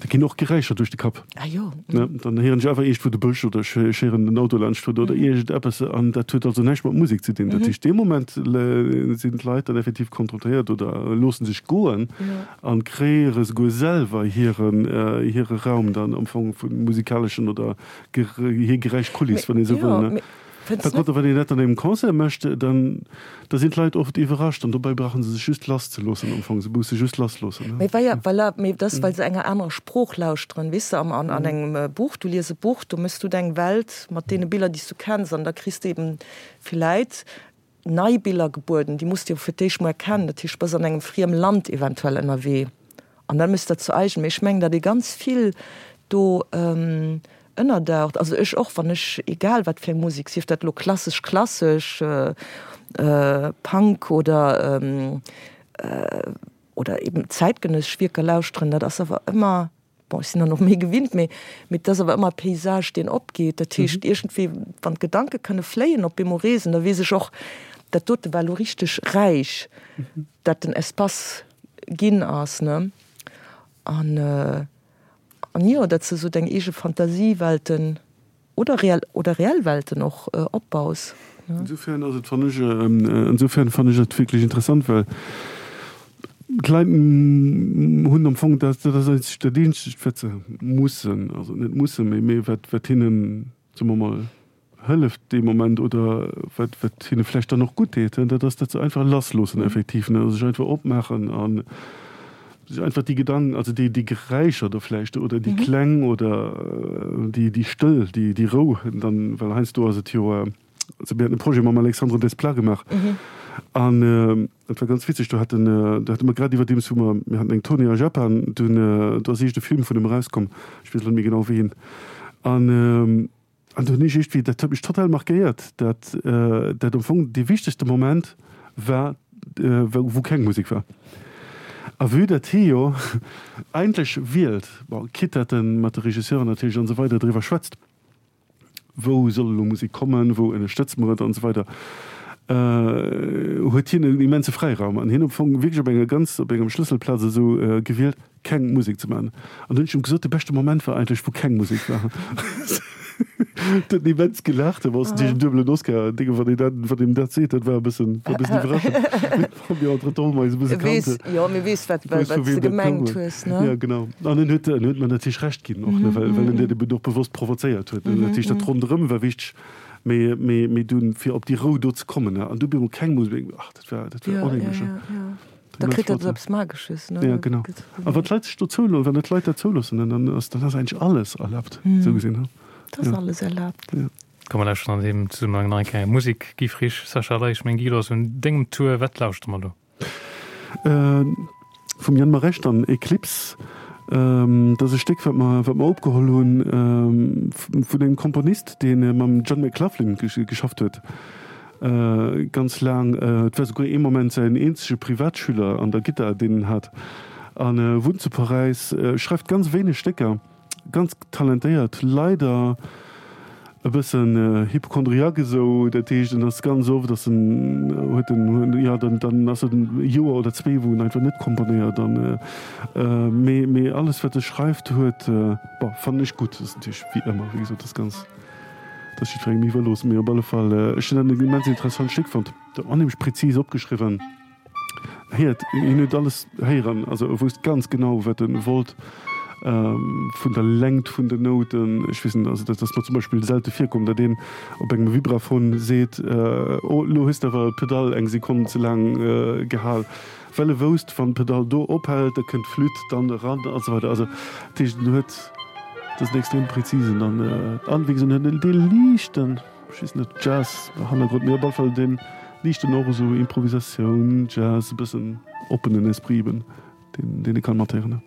da ginn och Geräischer duerch de Kapp. Ah jo. Ne, dann héieren ech einfach iergendwou de Bësch oder ech ech héieren den Auto laanscht fueren oder iergendeppes an dat huet also näischt mat Musek ze dinn. Dat heescht dee Moment sinn d'Leit dann effektiv konfrontéiert oder loosse sech goen An kreéiere souguer selwer hiren hire Raum dann am Fong vu musikaleschen oder hir Geräischkuliss, wann ee sou wëll, ne? Par contre, wann een dat an engem Concert mécht, dann da sinn d'Leit oft iwwerrascht an dobäi brauche se sech just lasszeloossen am Fong. Se musse just lassloossen, ne? Mee well, voilà, mee dat ass, well se enger anerer Sprooch lauschteren, weess de, am an an engem Buch, du lies e Buch, do méchs du deng Welt mat deene Biller, déi s du kenns an da kriss de eben villäit nei Biller gebueden, déi muss de jo fir d'éischt mol erkennen, dat heescht, du bass an engem friem Land eventuell ënnerwee an da méchs de dat zu eigen. Mee ech mengen, datt ee ganz vill do ënnerdaucht, also ech och, wann ech, egal wat fir eng Musek, sief dat elo klassesch, klassesch, Punk oder oder eben zäitgenëssesch Wierker lauschteren, dat ass awer ëmmer Bon, ech sinn dann och méi gewinnt, mee mee et ass awer ëmmer e Paysage, deen opgeet. Dat heescht, iergendwéi, wann d'Gedanke kënne fléien, op eemol reesen, da weess ech och, dat dote war elo richteg räich, dat den Espace ginn ass, ne? An an jo, datt s de esou deng eege Fantasiewelten Oder reell, oder reell Welten och opbaus. Insofern ass et, fannen ech, insofern fannen ech et wierklech interessant, well d'Leit hunn am Fong dat, dat ass eigentlech dat eenzegt, wat se mussen, also net mussen, mee, mee wat, wat hinnen, soe mer mol, hëlleft dee Moment oder wat, wat hinne vläicht dann och gutt deet, dat ass, datt se einfach lassloossen effektiv, ne, sech einfach opmaachen an. Einfach déi Gedanken, also déi, déi Geräischer do vläicht oder déi Kläng oder déi, déi Stëll, déi, déi Rou dann, well heiansdo ass et jo, also mir haten e Projet mam Alexandre Desplat gemaach an dat war ganz witzeg, do haten, do hate mer grad iwwerdeems wou mer, mir haten eng Tournée a Japan, dunn do ass eescht e Film vun em erauskomm, ech weess elo net méi genau wéi een, an An do hunn ech iergendwéi, dat huet mech total markéiert, dat dat am Fong dee wichtegste Moment war, wou keng Musek war. A vue datt hie jo eigentlech wielt, bon, quitte datt e mat de Regisseuren natierlech an esou weider driwwer schwätzt, wou soll elo Musek kommen, wou ënnerstëtze mer et an esou weider, huet hien en immense Fräiraum an hien am Fong wierklech op enger ganz, op engem Schlësselplaz esou gewielt. keng Musek ze man. An dunn hunn ech em gesot, de beschte Moment war eigentlech wou keng Musek war. Huet en immens gelaacht, awer ass natierlech en duebelen Oscar, Dénge wann een dat, wann een dat seet, dat war e bëssen, war e bëssen iwwerraschend. Mee mir entretemps hu mer eis e bësse kannt. Weess, jo, mee weess wat, wat s de gemengt hues, ne? Ja, genau. An en huet, en huet mer natierlech Recht ginn och, ne, well, well en dat eben och bewosst provozéiert huet, ne. Dat heescht, dat ronderëm war wichteg, mee, mee, mee dunn, fir op déi Rou do ze kommen, ne, an du op eemol keng Musek, ach, dat war, dat war onheemlech, ne. Ja, ja, ja. Da kritt dat eppes Magesches, ne? Ja, genau. A wann d'Leit sech do zouloossen, wann d'Leit dat zouloossen, dann ass, dann ass eigentlech alles erlaabt, esou gesinn, ne? Et ass alles erlaabt. Ja. Komm mer lauschteren an deem Zesummenhang nach eng Kéier Musek. Guy Frisch, Sascha Ley, ech mengen Guy, du ass un dengem Tour. Wat lauschtere mer do? Vum Yann Maresch dann Eclipse. Dat ass e Stéck, wat mer, wat mer opgeholl hunn vun engem Komponist, dee mam John McLaughlin geschafft huet. Ganz laang, et war souguer ee Moment säin eenzege Privatschüler an der Gittar, deen en hat, a wunnt zu Paräis, schreift ganz wéineg Stécker, ganz talentéiert, leider e bëssen Hypochondriaque esou, dat heescht en ass ganz oft ass en, huet en, jo dann dann ass et e Joer oder zwee wou en einfach net komponéiert an mee mee alles wat e schreift huet, bon fannen ech gutt, ass natierlech wéi ëmmer wéi gesot ass ganz. Dat ass jiddwerengem iwwerlooss, mee op alle Fall, ech hunn dat en immens interessant Stéck fonnt. Dat onheemlech präzis opgeschriwwen. Héiert, hien huet alles héieren, also e wousst ganz genau, wat e wollt, vun der Längt vun den Nouten. Ech weess net, also dat ass mer zum Beispill selte virkomm, datt een op engem Vibraphon seet, Oh, elo hues de awer d'Pedall eng Sekonn ze laang gehal. Well e wousst, wann d'Pedall do ophält, da kënnt d'Flütt dann eran a sou weider. Also dat heescht, en huet, dat ass en extrem präzisen an, an wéi gesot, en huet dee liichten, ech weess net, Jazz-Hannergrond, mee op alle Fall dee liichten och esou Improvisatioun, Jazz, e bëssen oppenen Esprit eben, deen, deen ee kann mathéieren.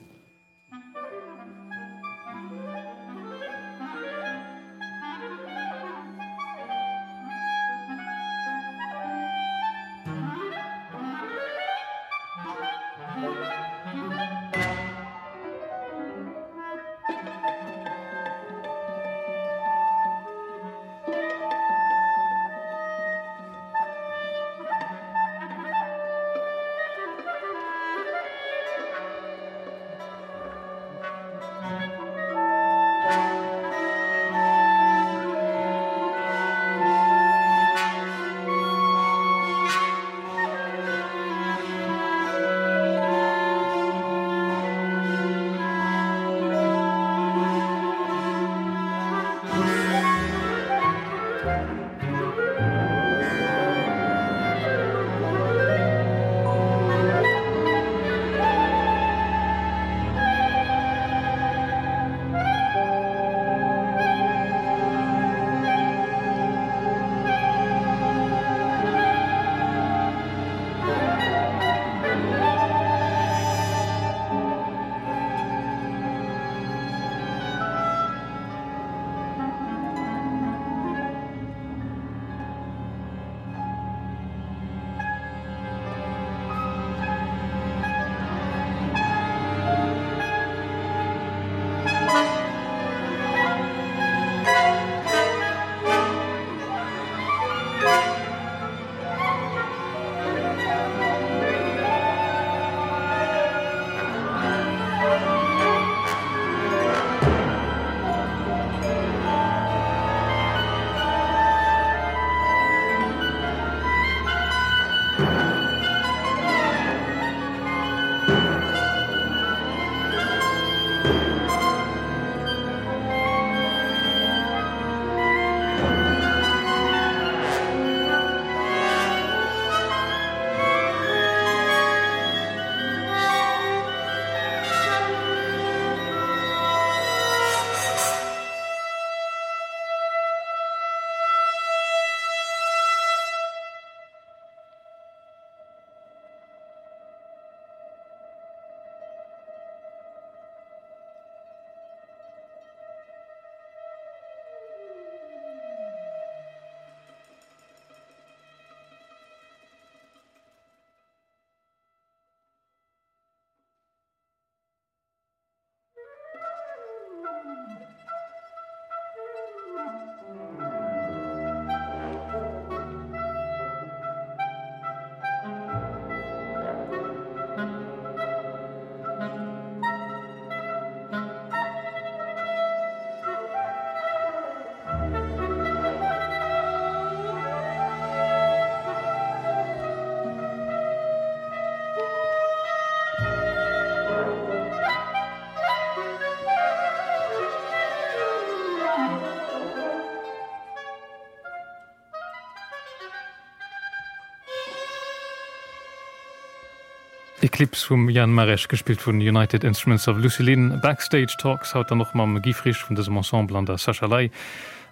Eclipse vum Jan Maresch, gespillt vun United Instruments of Lucilin. Backstage Talks haut dann och mam Guy Frisch vun dësem Ensemble an der Sascha Ley.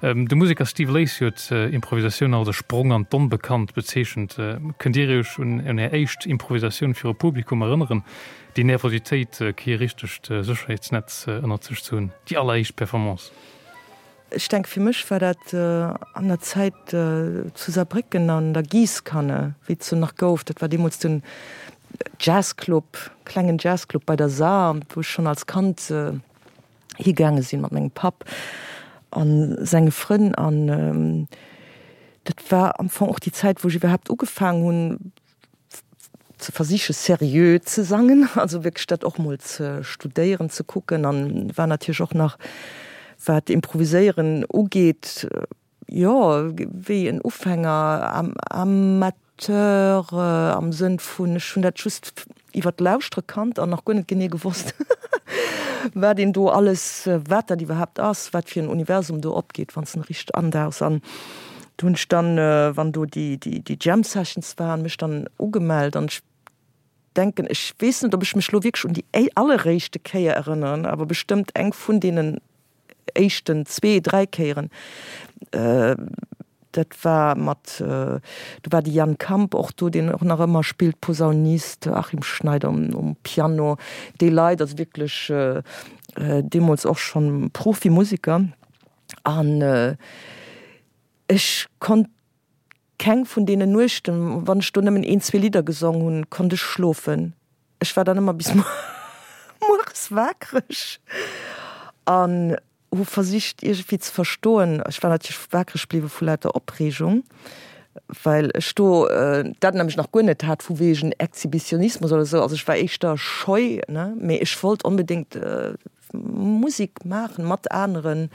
De Museker Steve Lacy huet Improvisatioun als e Sprong an d'Onbekannt bezeechent. Kënnt Dir Iech un Är éischt Improvisatioun viru Publikum erënneren? Déi Nervositéit, kee richtegt Sécherheetsnetz ënnert sech ze hunn, déi alleréischt Performance? Ech denke fir mech war dat an der Zäit zu Saarbrécken an der Giesskanne, wéi et se nach gouf. Dat war deemools den Jazzclub, klengen Jazzclub bei der Saar, wou ech schonn als Kand higaange sinn mat mengem Papp a senge Frënn. An dat war am Fong och déi Zäit, wou ech iwwerhaapt ugefaangen hunn, ze versiche seriö ze sangen, also wierklech dat och mol ze studéieren, ze kucken an war natierlech och nach, wat Improviséieren ugeet, jo, wéi en Ufänger, Amateur am Sënn vun, ech hunn dat just iwwer d'Lauschtere kannt an nach guer net genee gewosst, wat een do alles, wat dat iwwerhaapt ass, wat fir en Universum do opgeet, wann s de en richteg andauchs. An do hunn ech dann, wann do déi, déi, déi Jam Sessions waren, mech dann ugemellt an ech denken, ech weess net, ob ech mech elo wierklech un déi alleréischte Kéier erënneren, awer bestëmmt eng vun deenen éischten zwee, dräi Kéieren. Dat war mat, do war de Jan Kamp och do, deen och nach ëmmer spillt, Posaunist, Achim Schneider um Piano, déi Leit, also wierklech deemools och schonn Profimusiker. An ech konnt keng vun deenen Nuechten, wann ech do nëmmen een, zwee Lidder gesong hunn, konnt ech schlofen. Ech war dann ëmmer bis mueres waakreg an hu versicht iergendwéi ze verstoen. Ech war natierlech waakreg bliwwe vu lauter Opreegung, well ech do dat nämlech nach guer net hat vu wegen Exhibitionismus oder esou. Also ech war éischter scheu, ne, mee ech wollt onbedéngt Musek maachen mat aneren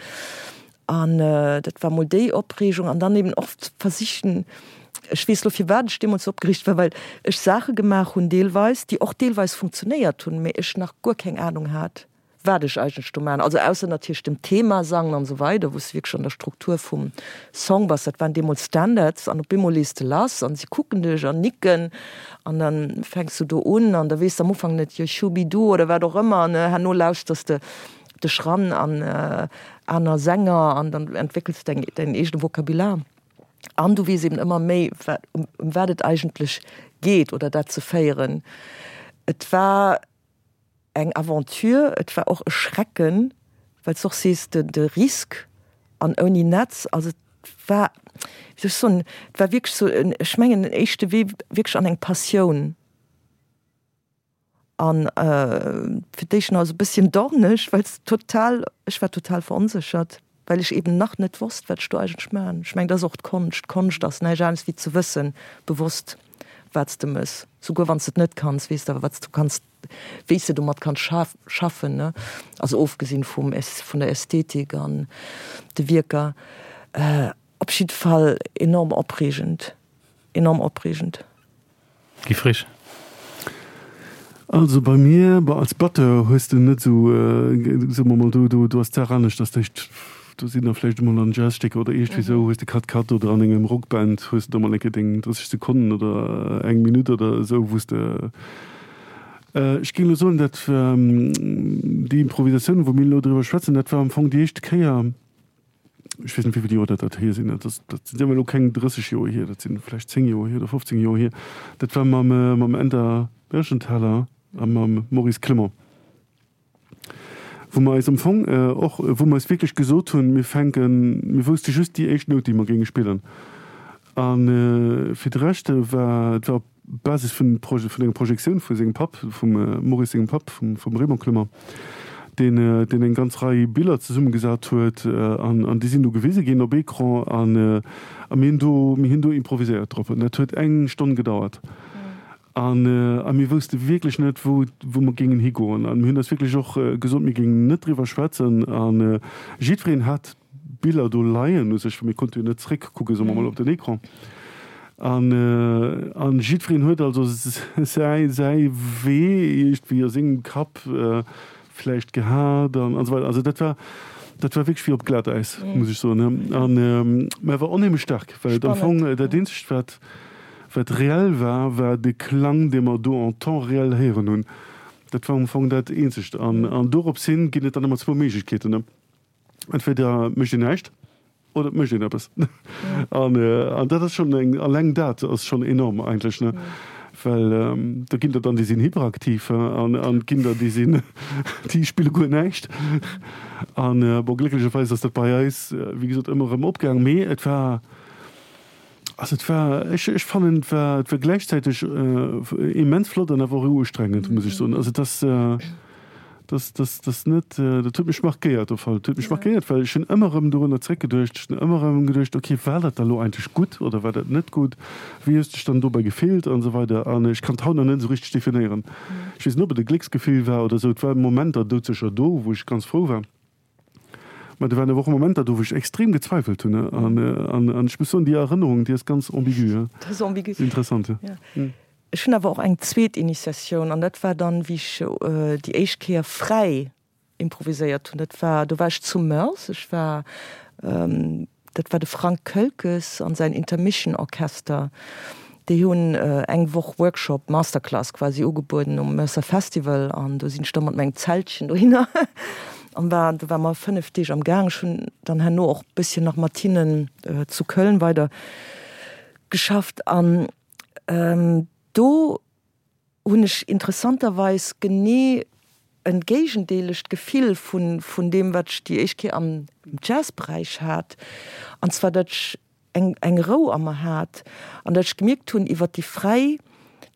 an dat war mol déi Opreegung an dann eben och versichen, ech weess lo firwat ech deemools sou opgereegt war, well ech Saache gemaach hunn deelweis, déi och deelweis funktionéiert hunn, mee ech nach guer keng Anung hat, wat ech eigentlech do maachen. Also ausser natierlech dem Thema sangen an esou weider, wou s de wierklech an der Struktur vum Song bass, dat waren deemools Standards an op eemol lees de lass an si kucken dech an nicken An dann fänks du do un an da weess de am Ufank net, jo schubidu oder wat och ëmmer ne. Herno lauschters de dech ran an aner Sänger an dann entwéckels de däin eegene Vokabular an du weess eben ëmmer méi wat ëm wat et eigentlech geet oder dat ze féieren. Et war eng Aventure, et war och e Schrecken, well s de och sees, de de Risk an ouni Netz, also et war, wéi soll ech soen, et war wierklech sou en, ech mengen en éischte Wee wierklech an eng Passioun an fir d'éischt nach esou e bësschen dorneg, well s total, ech war total veronséchert, well ech eben nach net wosst, wat ech do eigentlech maachen. Ech mengen, dat ass och d'Konscht, d'Konscht ass näischt anescht wéi ze wëssen, bewosst, wat s de mëss, souguer wann s de et net kanns, weess de awer, wat s du kanns, wéi s de domat kanns schaffen, ne? Also ofgesinn vum vun der Ästhetik an de Wierker. Op jidde Fall enorm opreegend, enorm opreegend. Guy Frisch. Also bei mir, bon als Batteur hues de net esou, soe mer mol, do do ass d'Saach anescht, dass d'éischt do sinn der vläicht emol an Jazzstécker oder iergendwéi esou, hues de Cut Cut oder an engem Rockband hues de da mol eng Kéier deng 30 Sekonnen oder eng Minutt oder esou, wou s de, ech géing elo soen, dat déi Improvisatioun, wou mir elo driwwer schwätzen, dat war am Fong déi éischt Kéier, ech weess net wéi vill Joer dat dat hier sinn, dat ass, dat sinn awer elo keng 30 Joer hier, dat sinn vläicht 10 Joer hier oder 15 Joer hier, dat war mam mam Änder Mergenthaler a mam Maurice Clement, wou mer eis am Fong och, wou mer eis wierklech gesot hunn, mir fänken, mir wousste just déi éischt Nout déi mer géinge spillen a fir de Rescht war, et war op Basis vun vun enger Projektioun vu sengem Papp, vum Maurice sengem Papp, vum vum Raymond Clement, deen deen eng ganz Rei Biller zesummegesat huet an an déi sinn du gewise ginn op Ecran an a mir hunn do mir hunn do improviséiert drop an dat huet eng Stonn gedauert an a mir wousste wierklech net wou wou mer géingen higoen an mir hunn eis wierklech och gesot mir géingen net driwwer schwätzen an jiddwereen hat Biller do leien u sech, well mir konnte jo net zréckkucken, soe mer mol, op den Ecran. An, an jiddwereen huet also säi, säi Wee iergendwéi a sengem Kapp vläicht gehat an, an esou weider. Also dat war, dat war wierklech wéi op Glatäis, muss ech soen. An, mä war onheemlech staark, well et am Fong dat eenzegt, wat. Wat reell war, war de Klang, dee mer do en temps réel héieren hunn. Dat war am Fong dat Eenzegt. An, an dorops hin ginn et dann ëmmer zwou Méiglechkeeten, Entweder mécht een näischt oder et mécht een eppes. An, an dat ass schonn eng, alleng dat ass schonn enorm eigentlech, ne? Well do ginn der dann, déi sinn hyperaktiv, an, an et ginn der, déi sinn, déi spille guer näischt. An bon, glécklecherweis ass dat bei eis, wéi gesot, ëmmer erëm opgaang. Mee et war, Also et war, ech, ech fannen et war, et war gläichzäiteg immens flott an awer och ustrengend, muss ech soen. Also et ass, dass, dass, dass net, dat huet mech markéiert op Fall. Et huet mech markéiert, well ech hunn ëmmer erëm dorunner zréckgeduecht. Ech hunn ëmmer erëm geduecht, okay, war dat da lo eigentlech gutt oder war dat net gutt? Wéi hues de dech dann dobäi gefillt an esou weider. An ech kann et haut nach net esou richteg definéieren. Ech weess net, ob et e Glécksgefill war oder esou. Et war Momenter doudsécher do, wou ech ganz frou war. Mä do waren awer och Momenter do, wou ech extrem gezweifelt hunn. An, an, an ech muss soen, déi Erënnerung, déi ass ganz ambigu. Dat ass ambigu. Interessant, jo. Ja. Ech hunn awer och eng zweet Initiatioun, an dat war dann, wéi ech déi éischt Kéier fräi improviséiert hunn. Dat war, do war ech zu Moers. Ech war, Dat war de Frank Kölkes an säin Intermission Orchester. Déi hunn eng Woch Workshop, Masterclass quasi ugebueden um Mercer Festival an do sinn ech da mat mengem Zeltchen dohinner an war, do ware mer 5 Deeg am Gaang. Ech hunn dann herno och bësschen nach mat hinnen zu Köln weider geschafft an do hunn ech interessanterweis genee en géigendeelegt Gefill vun vun deem, wat ech déi éischt Kéier am Jazzberäich hat, an zwar datt ech eng eng Rou a mer hat an datt ech gemierkt hunn iwwert déi fräi,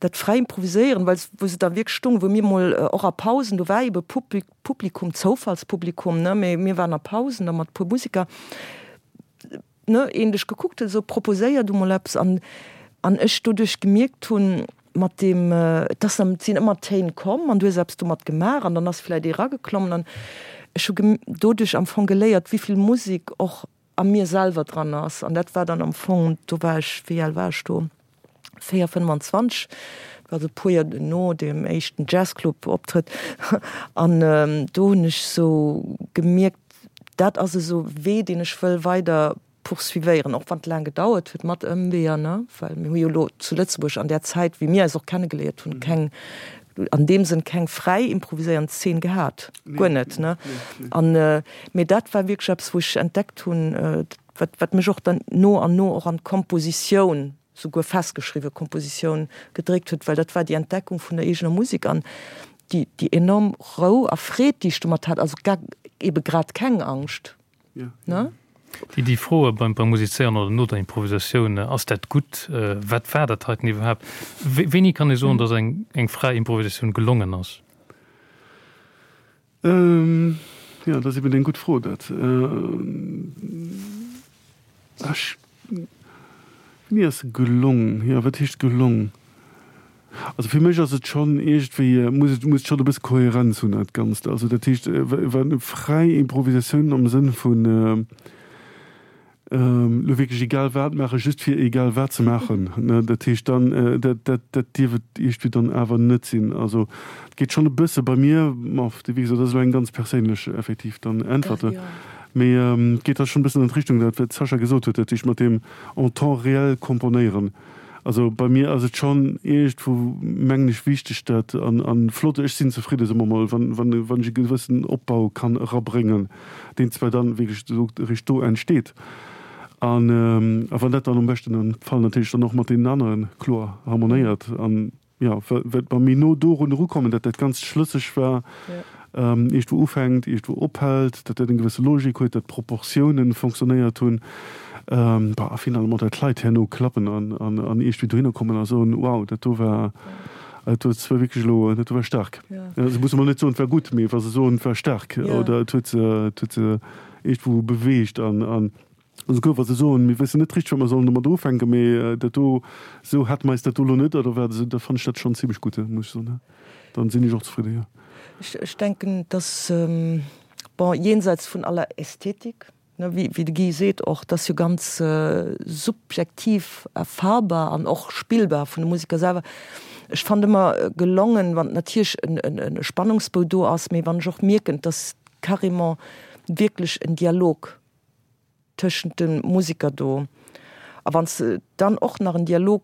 dat fräi Improviséieren, well wou se da wierklech stoungen, wou mir mol och a Pausen, do war ebe Publi Publikum, Zoufallspublikum, ne, mee mir waren a Pausen da mat e puer Museker, ne, een dech gekuckt huet, esou proposéier du mol eppes an an ech doduerch gemierkt hunn, mat deem, et ass dann, et sinn ëmmer Téin komm an du hues eppes domat gemaach an dann ass vläicht ee erageklommen an ech hu doduerch am Fong geléiert, wéi vill Musek och a mir selwer dran ass an dat war dann am Fong, do war ech, wéi al war ech do? 4, 25, dat war esou e puer Joer no deem éischten Jazzclub-Optrëtt an do hunn ech esou gemierkt, dat ass esou e Wee, deen ech wëll weider poursuivéieren, och wann et laang gedauert huet mat Ëmweeër, ne, well mir hu jo elo zu Lëtzebuerg an där Zäit, wéi mir eis och kennegeléiert hunn, keng, an deem Sënn keng fräi improviséierend Zeen gehat, guer net, ne. An, mee dat war wierklech eppes, wou ech entdeckt hunn, wat, wat mech och dann no an no och an d'Kompositioun, souguer festgeschriwwe Kompositioun gedréckt huet, well dat war déi Entdeckung vun der eegener Musek an déi, déi enorm Rou a Freed, déi ech domat hat, also gar, ebe grad keng Angscht, ne? Déi, déi Froe beim, beim Musizéieren oder no der Improvisatioun, ass dat gutt, wat war dat heiten iwwerhaapt? Wéini kann ee soen, datt eng, eng fräi Improvisatioun gelongen ass? Jo, dat ass eben eng gutt Fro, dat. Ech, wéini ass se gelong? Jo, wat heescht gelong? Also fir mech ass et schonn iergendwéi, muss et, muss et schonn e bësse Kohärenz hunn, dat Ganzt. Also dat heescht, wa fräi Improvisatioun am Sënn vun, Elo wierklech egal wat maachen, just fir egal wat ze maachen, ne, dat heescht dann, dat, dat, dat dierf et iergendwéi dann awer net sinn. Also et geet schonn e bësse bei mir, ma wéi gesot, dat ass elo eng ganz perséinlech effektiv dann Äntwert, mee et geet da schonn e bëssen an d'Richtung, dat wat d'Sascha gesot huet, dat heescht mat deem en temps réel komponéieren. Also bei mir ass et schonn iergendwou, mengen ech, wichteg, dat an, an flott, ech sinn zefridde soe mer mol, wann, wann, wann ech e gewëssen Opbau kann erabréngen, deen zwar dann wierklech esou eréischt do entsteet. An, a wann dat dann am beschten Fall natierlech dann och mat deenen anere kloer harmonéiert an, jo, wat mer méi no dorun erukommen, datt dat Ganzt schlësseg war, iergendwou ufänkt, iergendwou ophält, datt dat eng gewësse Logik huet, datt d'Proportiounen fonctionnéiert hunn, bah, a finalement datt d'Leit herno klappen an, an, an iergendwéi dohinner kommen a soen, wow, dat do war, dat huet zwar wierklech elo, dat do war staark. Se musse mol net soen, et war gutt, mee wa se soen, et war staark oder et huet se, et huet se iergendwou beweegt an, an. Esouguer wa se soen, mir wëssen net richteg, wat mer sollen domat ufänken, mee dat do, esou hate mer eis dat do elo net oder wat, esou, da fannen ech dat schonn zimlech gutt, muss ech soen. Dann sinn ech och zefridde, jo. Ech denken, dass, bon, jenseits vun aller Ästhetik, ne, wéi de Guy seet och, dat ass jo ganz subjektiv erfahrbar an och spillbar vun de Museker selwer. Ech fannen ëmmer gelongen, wann natierlech e Spannungsbou do ass, mee wann ech och mierken, dass carrément wierklech en Dialog tëschent de Musiker do. A wann s de dann och nach en Dialog.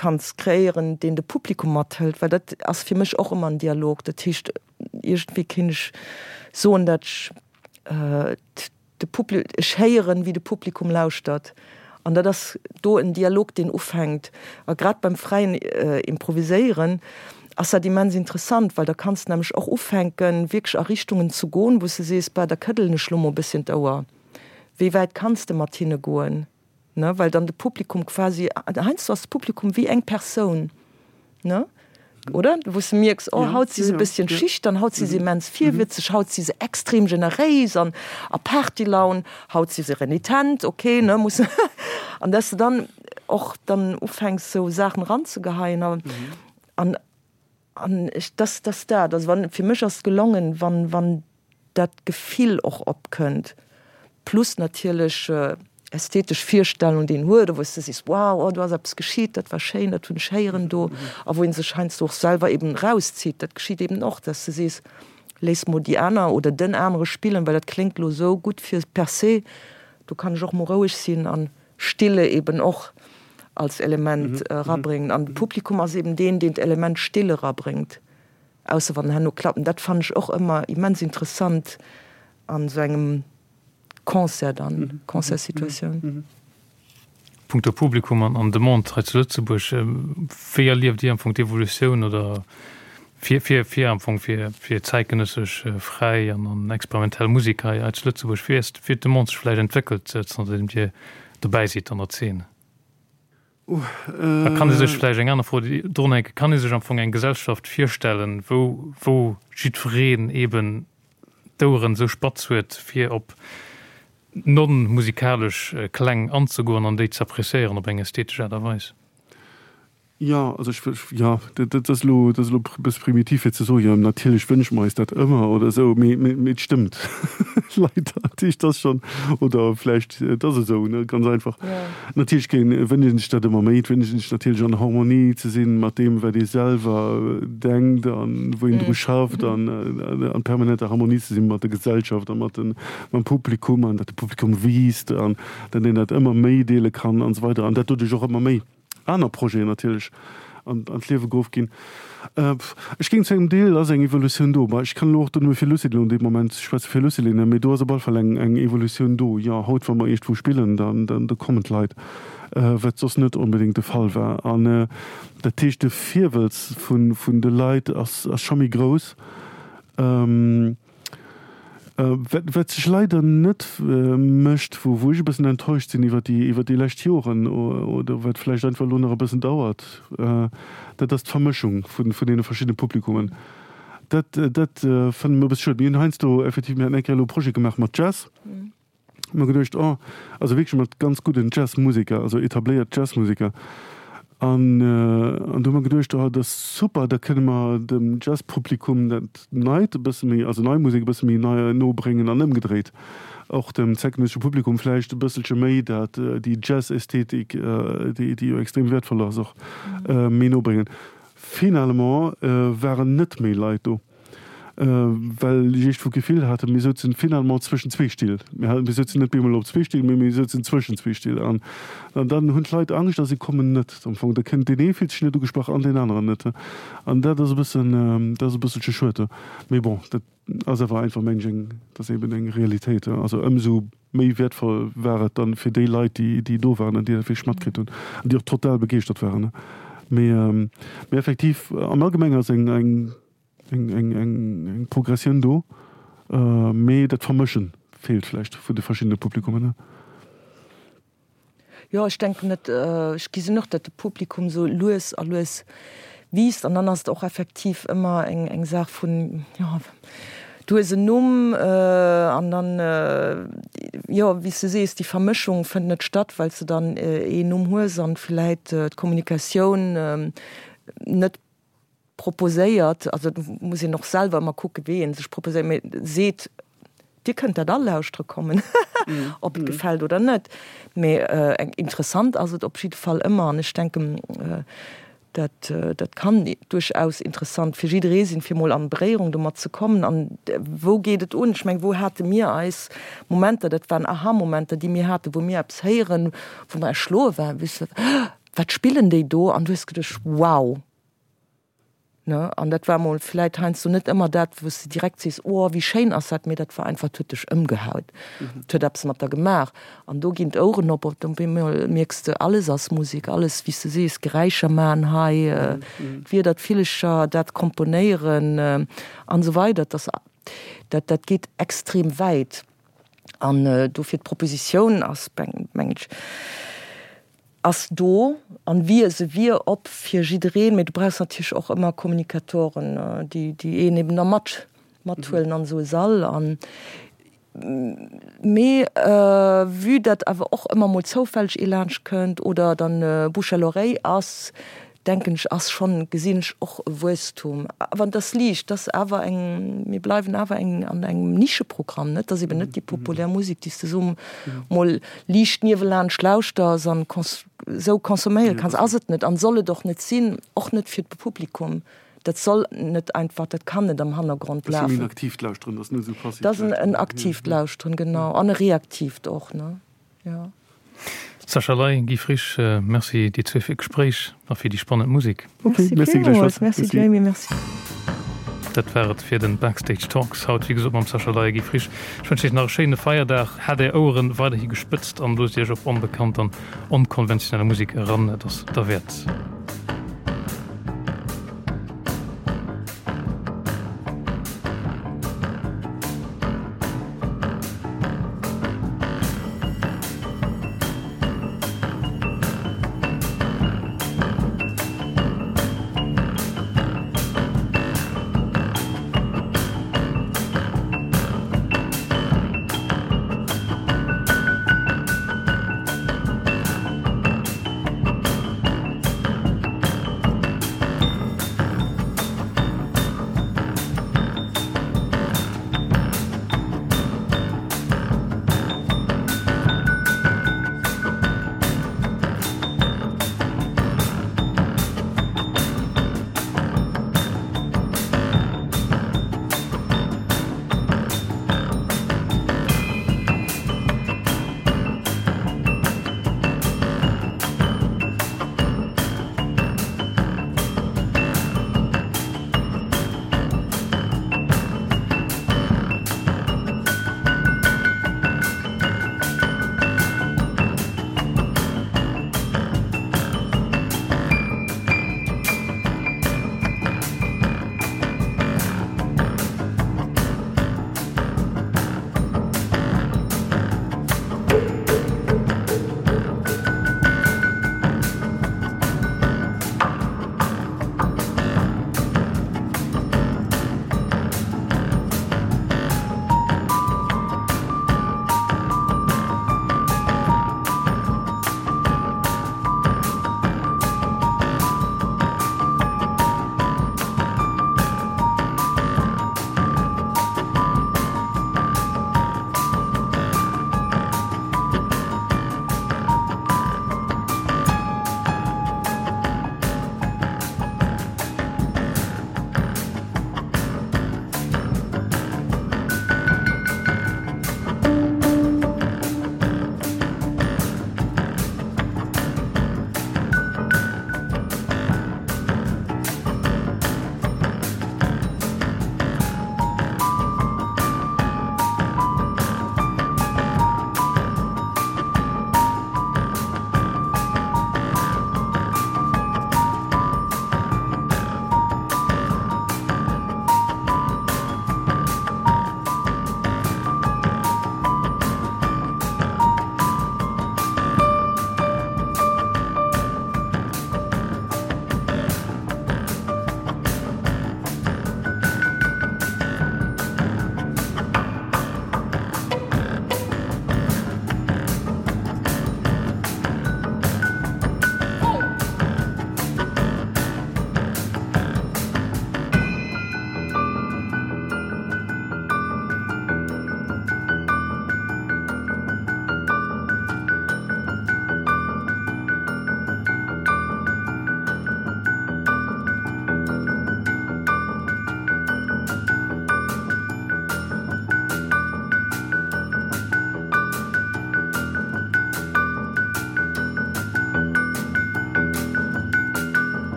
Kanns kreéieren, deen de Publikum mathëlt, well dat ass fir mech och ëmmer en Dialog. Dat heescht, iergendwéi kéint ech soen, dat ech de Publi, ech héieren, wéi de Publikum lauschtert. An dat ass do en Dialog, deen ufänkt. A grad beim fräien Improviséieren ass dat immens interessant, well da kanns de nämlech och ufänken, wierklech a Richtungen ze goen, wou s de sees, Bah, da këddelen ech lo mol e bësschen d'Ouer. Wéi wäit kanns de mat hinne goen? Ne, well dann de Publikum quasi, heiansdo ass de Publikum wéi eng Persoun, ne, oder? Wou s de mierks, oh, haut si se e bësschen schüchtern, haut si se immens virwëtzeg, haut si se extrem generéis an a Partylaun, haut si se renitent, okay, ne, muss, an dass de dann och dann ufänks, sou Saachen eranzegeheien an, an, an ech, dass, dass dat, also wann, fir mech ass et gelongen, wann, wann dat Gefill och opkënnt, plus natierlech ästhetesch Virstellung, déi een huet, wou s de sees, wow, oh do ass eppes geschitt, dat war schéin, dat hunn ech héieren do, a wou ee sech heiansdo och selwer eben erauszitt. Dat geschitt eben och, dass de sees, léiss mol déi aner oder den anere spillen, well dat kléngt elo esou gutt fir per se, do kann ech och mol roueg sinn an Stille eben och als Element erabréngen. An de Publikum ass eben deen, deen d'Element Stille erabréngt. Ausser wann herno klappen. Dat fannen ech och ëmmer immens interessant an esou engem Concert dann, Concertssituatioun. Punkto Publikum an Demande hei zu Lëtzebuerg, wéi erlieft Dir am Fong d'Evolutioun oder fir fir fir am Fong fir fir zäitgenëssesch fräi an an experimentell Musek hei hei zu Lëtzebuerg? Wéi ass wéi huet d'Demande sech vläicht entwéckelt zanterdeem Dir dobäi sidd an der Zeen? A kann ee sech vläicht eng aner Fro drunhänken, kann ee sech am Fong eng Gesellschaft virstellen, wou, wou jiddwereen eeben d'Oueren esou spatz huet, fir op non-musikalesch Kläng anzegoen an déi ze appréciéieren op eng ästhetesch Aart a Weis? Jo, also ech, jo, dat ass elo, dat ass elo e bësse primitiv fir ze soen, jo natierlech wënsche mer eis dat ëmmer oder esou, mee, mee et stëmmt leider. Dat heescht, et ass schonn, oder vläicht, et ass esou, ne, ganz einfach. Natierlech géing, wënscht een sech dat ëmmer méi. Et wënscht een sech natierlech an Harmonie ze sinn mat deem, wat ee selwer denkt an wou een dru schafft an an permanenter Harmonie ze sinn mat der Gesellschaft a mat den, mam Publikum an datt de Publikum wiisst an datt een dat ëmmer méi deele kann an esou weider an dat doduerch och ëmmer méi. aner Projeten natierlech an d'Liewe geruff ginn. Ech géing zu engem Deel ass eng Evolutioun do. Bah, ech kann elo och do nëmme fir Lucilin elo an deem Moment schwätzen, fir Lucilin, mee do ass op alle Fall eng eng Evolutioun do. Jo, haut, wa mer iergendwou spillen, dann dann do kommen d'Leit, wat soss net onbedéngt de Fall war. An dat heescht, de Virwëlz vun vun de Leit ass ass scho méi grouss. Wat sech leider net mécht, wou ech e bëssen enttäuscht sinn iwwer déi, iwwer déi lescht Joren oder wat vläicht einfach elo nach e bëssen dauert, dat ass d'Vermëschung vun deene verschiddene Publikummen. Dat, dat fannen ech e bësse schued. Mir hunn heiansdo effektiv, mir haten eng Kéier elo e Projet gemaach mat Jazz, Hu mer geduecht, oh, also wierklech mat ganz gudden Jazzmuseker, also etabléiert Jazzmuseker. An, an du hu mer geduecht, oh, dat ass super, da kënne mer dem Jazzpublikum dat Neit e bësse méi, also nei Musek e bësse méi nei no bréngen an ëmgedréit och dem zäitgenëssesche Publikum vläicht e bësselche méi dat, déi Jazz-Ästhetik, déi, déi jo extrem wäertvoll ass, och méi no bréngen. Finalement waren net méi Leit do. Well ech iergendwou d'Gefill haten, mir souzen finalement zwëschen zwee Still. Mir mir souzen net bemol op zwee Still, mee mir souzen zwëschen zwee Still. An dann hunn d'Leit Angscht a si kommen net am Fong. Da kënnt deen ee fillt sech net ugesprach an deen aneren net. An dat ass e bëssen, dat ass e bësselche schued. Mee bon, dat ass awer einfach, mengen ech, eng, dat ass eben eng Realitéit. Also ëmsou méi wäertvoll war et dann fir déi Leit, déi, déi do waren an déi dat wierklech matkritt hunn an déi och total begeeschtert waren. Mee, mee effektiv am Allgemenge ass eng, eng, Eng Progressioun do, mee dat Vermëschen feelt vläicht vun de verschiddene Publikummen. Jo, ech denken net, ech gesinn och, datt de Publikum esou lues a lues wiisst an dann ass et och effektiv ëmmer eng Saach vun, jo, du hues en Numm an dann, jo, wéi s de sees, déi Vermëschung fënnt net statt, well s de dann een Numm hues an vläit d'Kommunikatioun net proposéiert, also et muss een och selwer ëmmer kucke wéi ee sech proposéiert, mee seet, Dir kënnt dat all lauschtere kommen, ob et gefält oder net. Mee eng interessant ass et op jidde Fall ëmmer an ech denken, dat dat kann duerchaus interessant fir jidderee sinn, fir mol an Beréierung domat ze kommen. An wou geet et un? Ech meng, wou hate mir eis Momenter, dat waren Aha-Momenter, déi mir haten, wou mir eppes héieren, wou mer erschloe waren, wéi se. Wat spillen déi do? An du hues geduecht, Wow! Ne? An dat war mol vläit heiansdo net ëmmer dat, wou s de direkt sees, Oh, wéi schéin ass dat, mee dat war einfach, et huet dech ëmgehaut, et huet eppes mat der gemaach. An do ginn d'Oueren op, op eemol mierks de, alles ass Musek, alles, wéi s de sees, Geräischer maachen hei, d'Wierder, d'Villecher, dat komponéieren an esou weider. Dat ass, dat, dat geet extrem wäit. An dofir d'Propositioun ass, mengen ech, ass do an wier, se wier op fir jiddereen, mee du brauchs natierlech och ëmmer Kommunikatoren, déi déi een eben da mat mathuelen an esou e Sall. An mee vue dat awer och ëmmer mol zoufälleg ee laanscht kënnt oder dann Bouche à l'oreille ass, denken ech, ass schonn, gesinn ech och e Wuesstum. Awer et ass liicht, et ass awer eng, mir bleiwen awer eng an engem Nischeprogramm, net? Et ass eben net déi populär Musek, déi s de esou mol liicht niewelaanscht lauschters an esou consomméiere kanns. Ass et net an soll et och net sinn, och net fir d'Publikum. Dat soll net einfach, dat kann net am Hannergrond lafen. Dat ass méi en aktiivt Lauschteren, dat ass net esou passiivt Lauschteren. Dat ass en aktiivt Lauschteren, genau, an e reaktiivt och, ne? Jo. Sascha Ley, Guy Frisch, Merci dir zwee fir d'Gespréich a fir déi spannend Musek. Ok, Merci villmools. Merci Jamie, merci. Dat war et fir den Backstage Talks haut, wéi gesot mam Sascha Ley a Guy Frisch. Ech wënschen iech nach e schéine Feierdag. Haalt är Oueren weiderhi gespëtzt an loosst iech op onbekannt an onkonventionell Musek eran, et ass derwäert.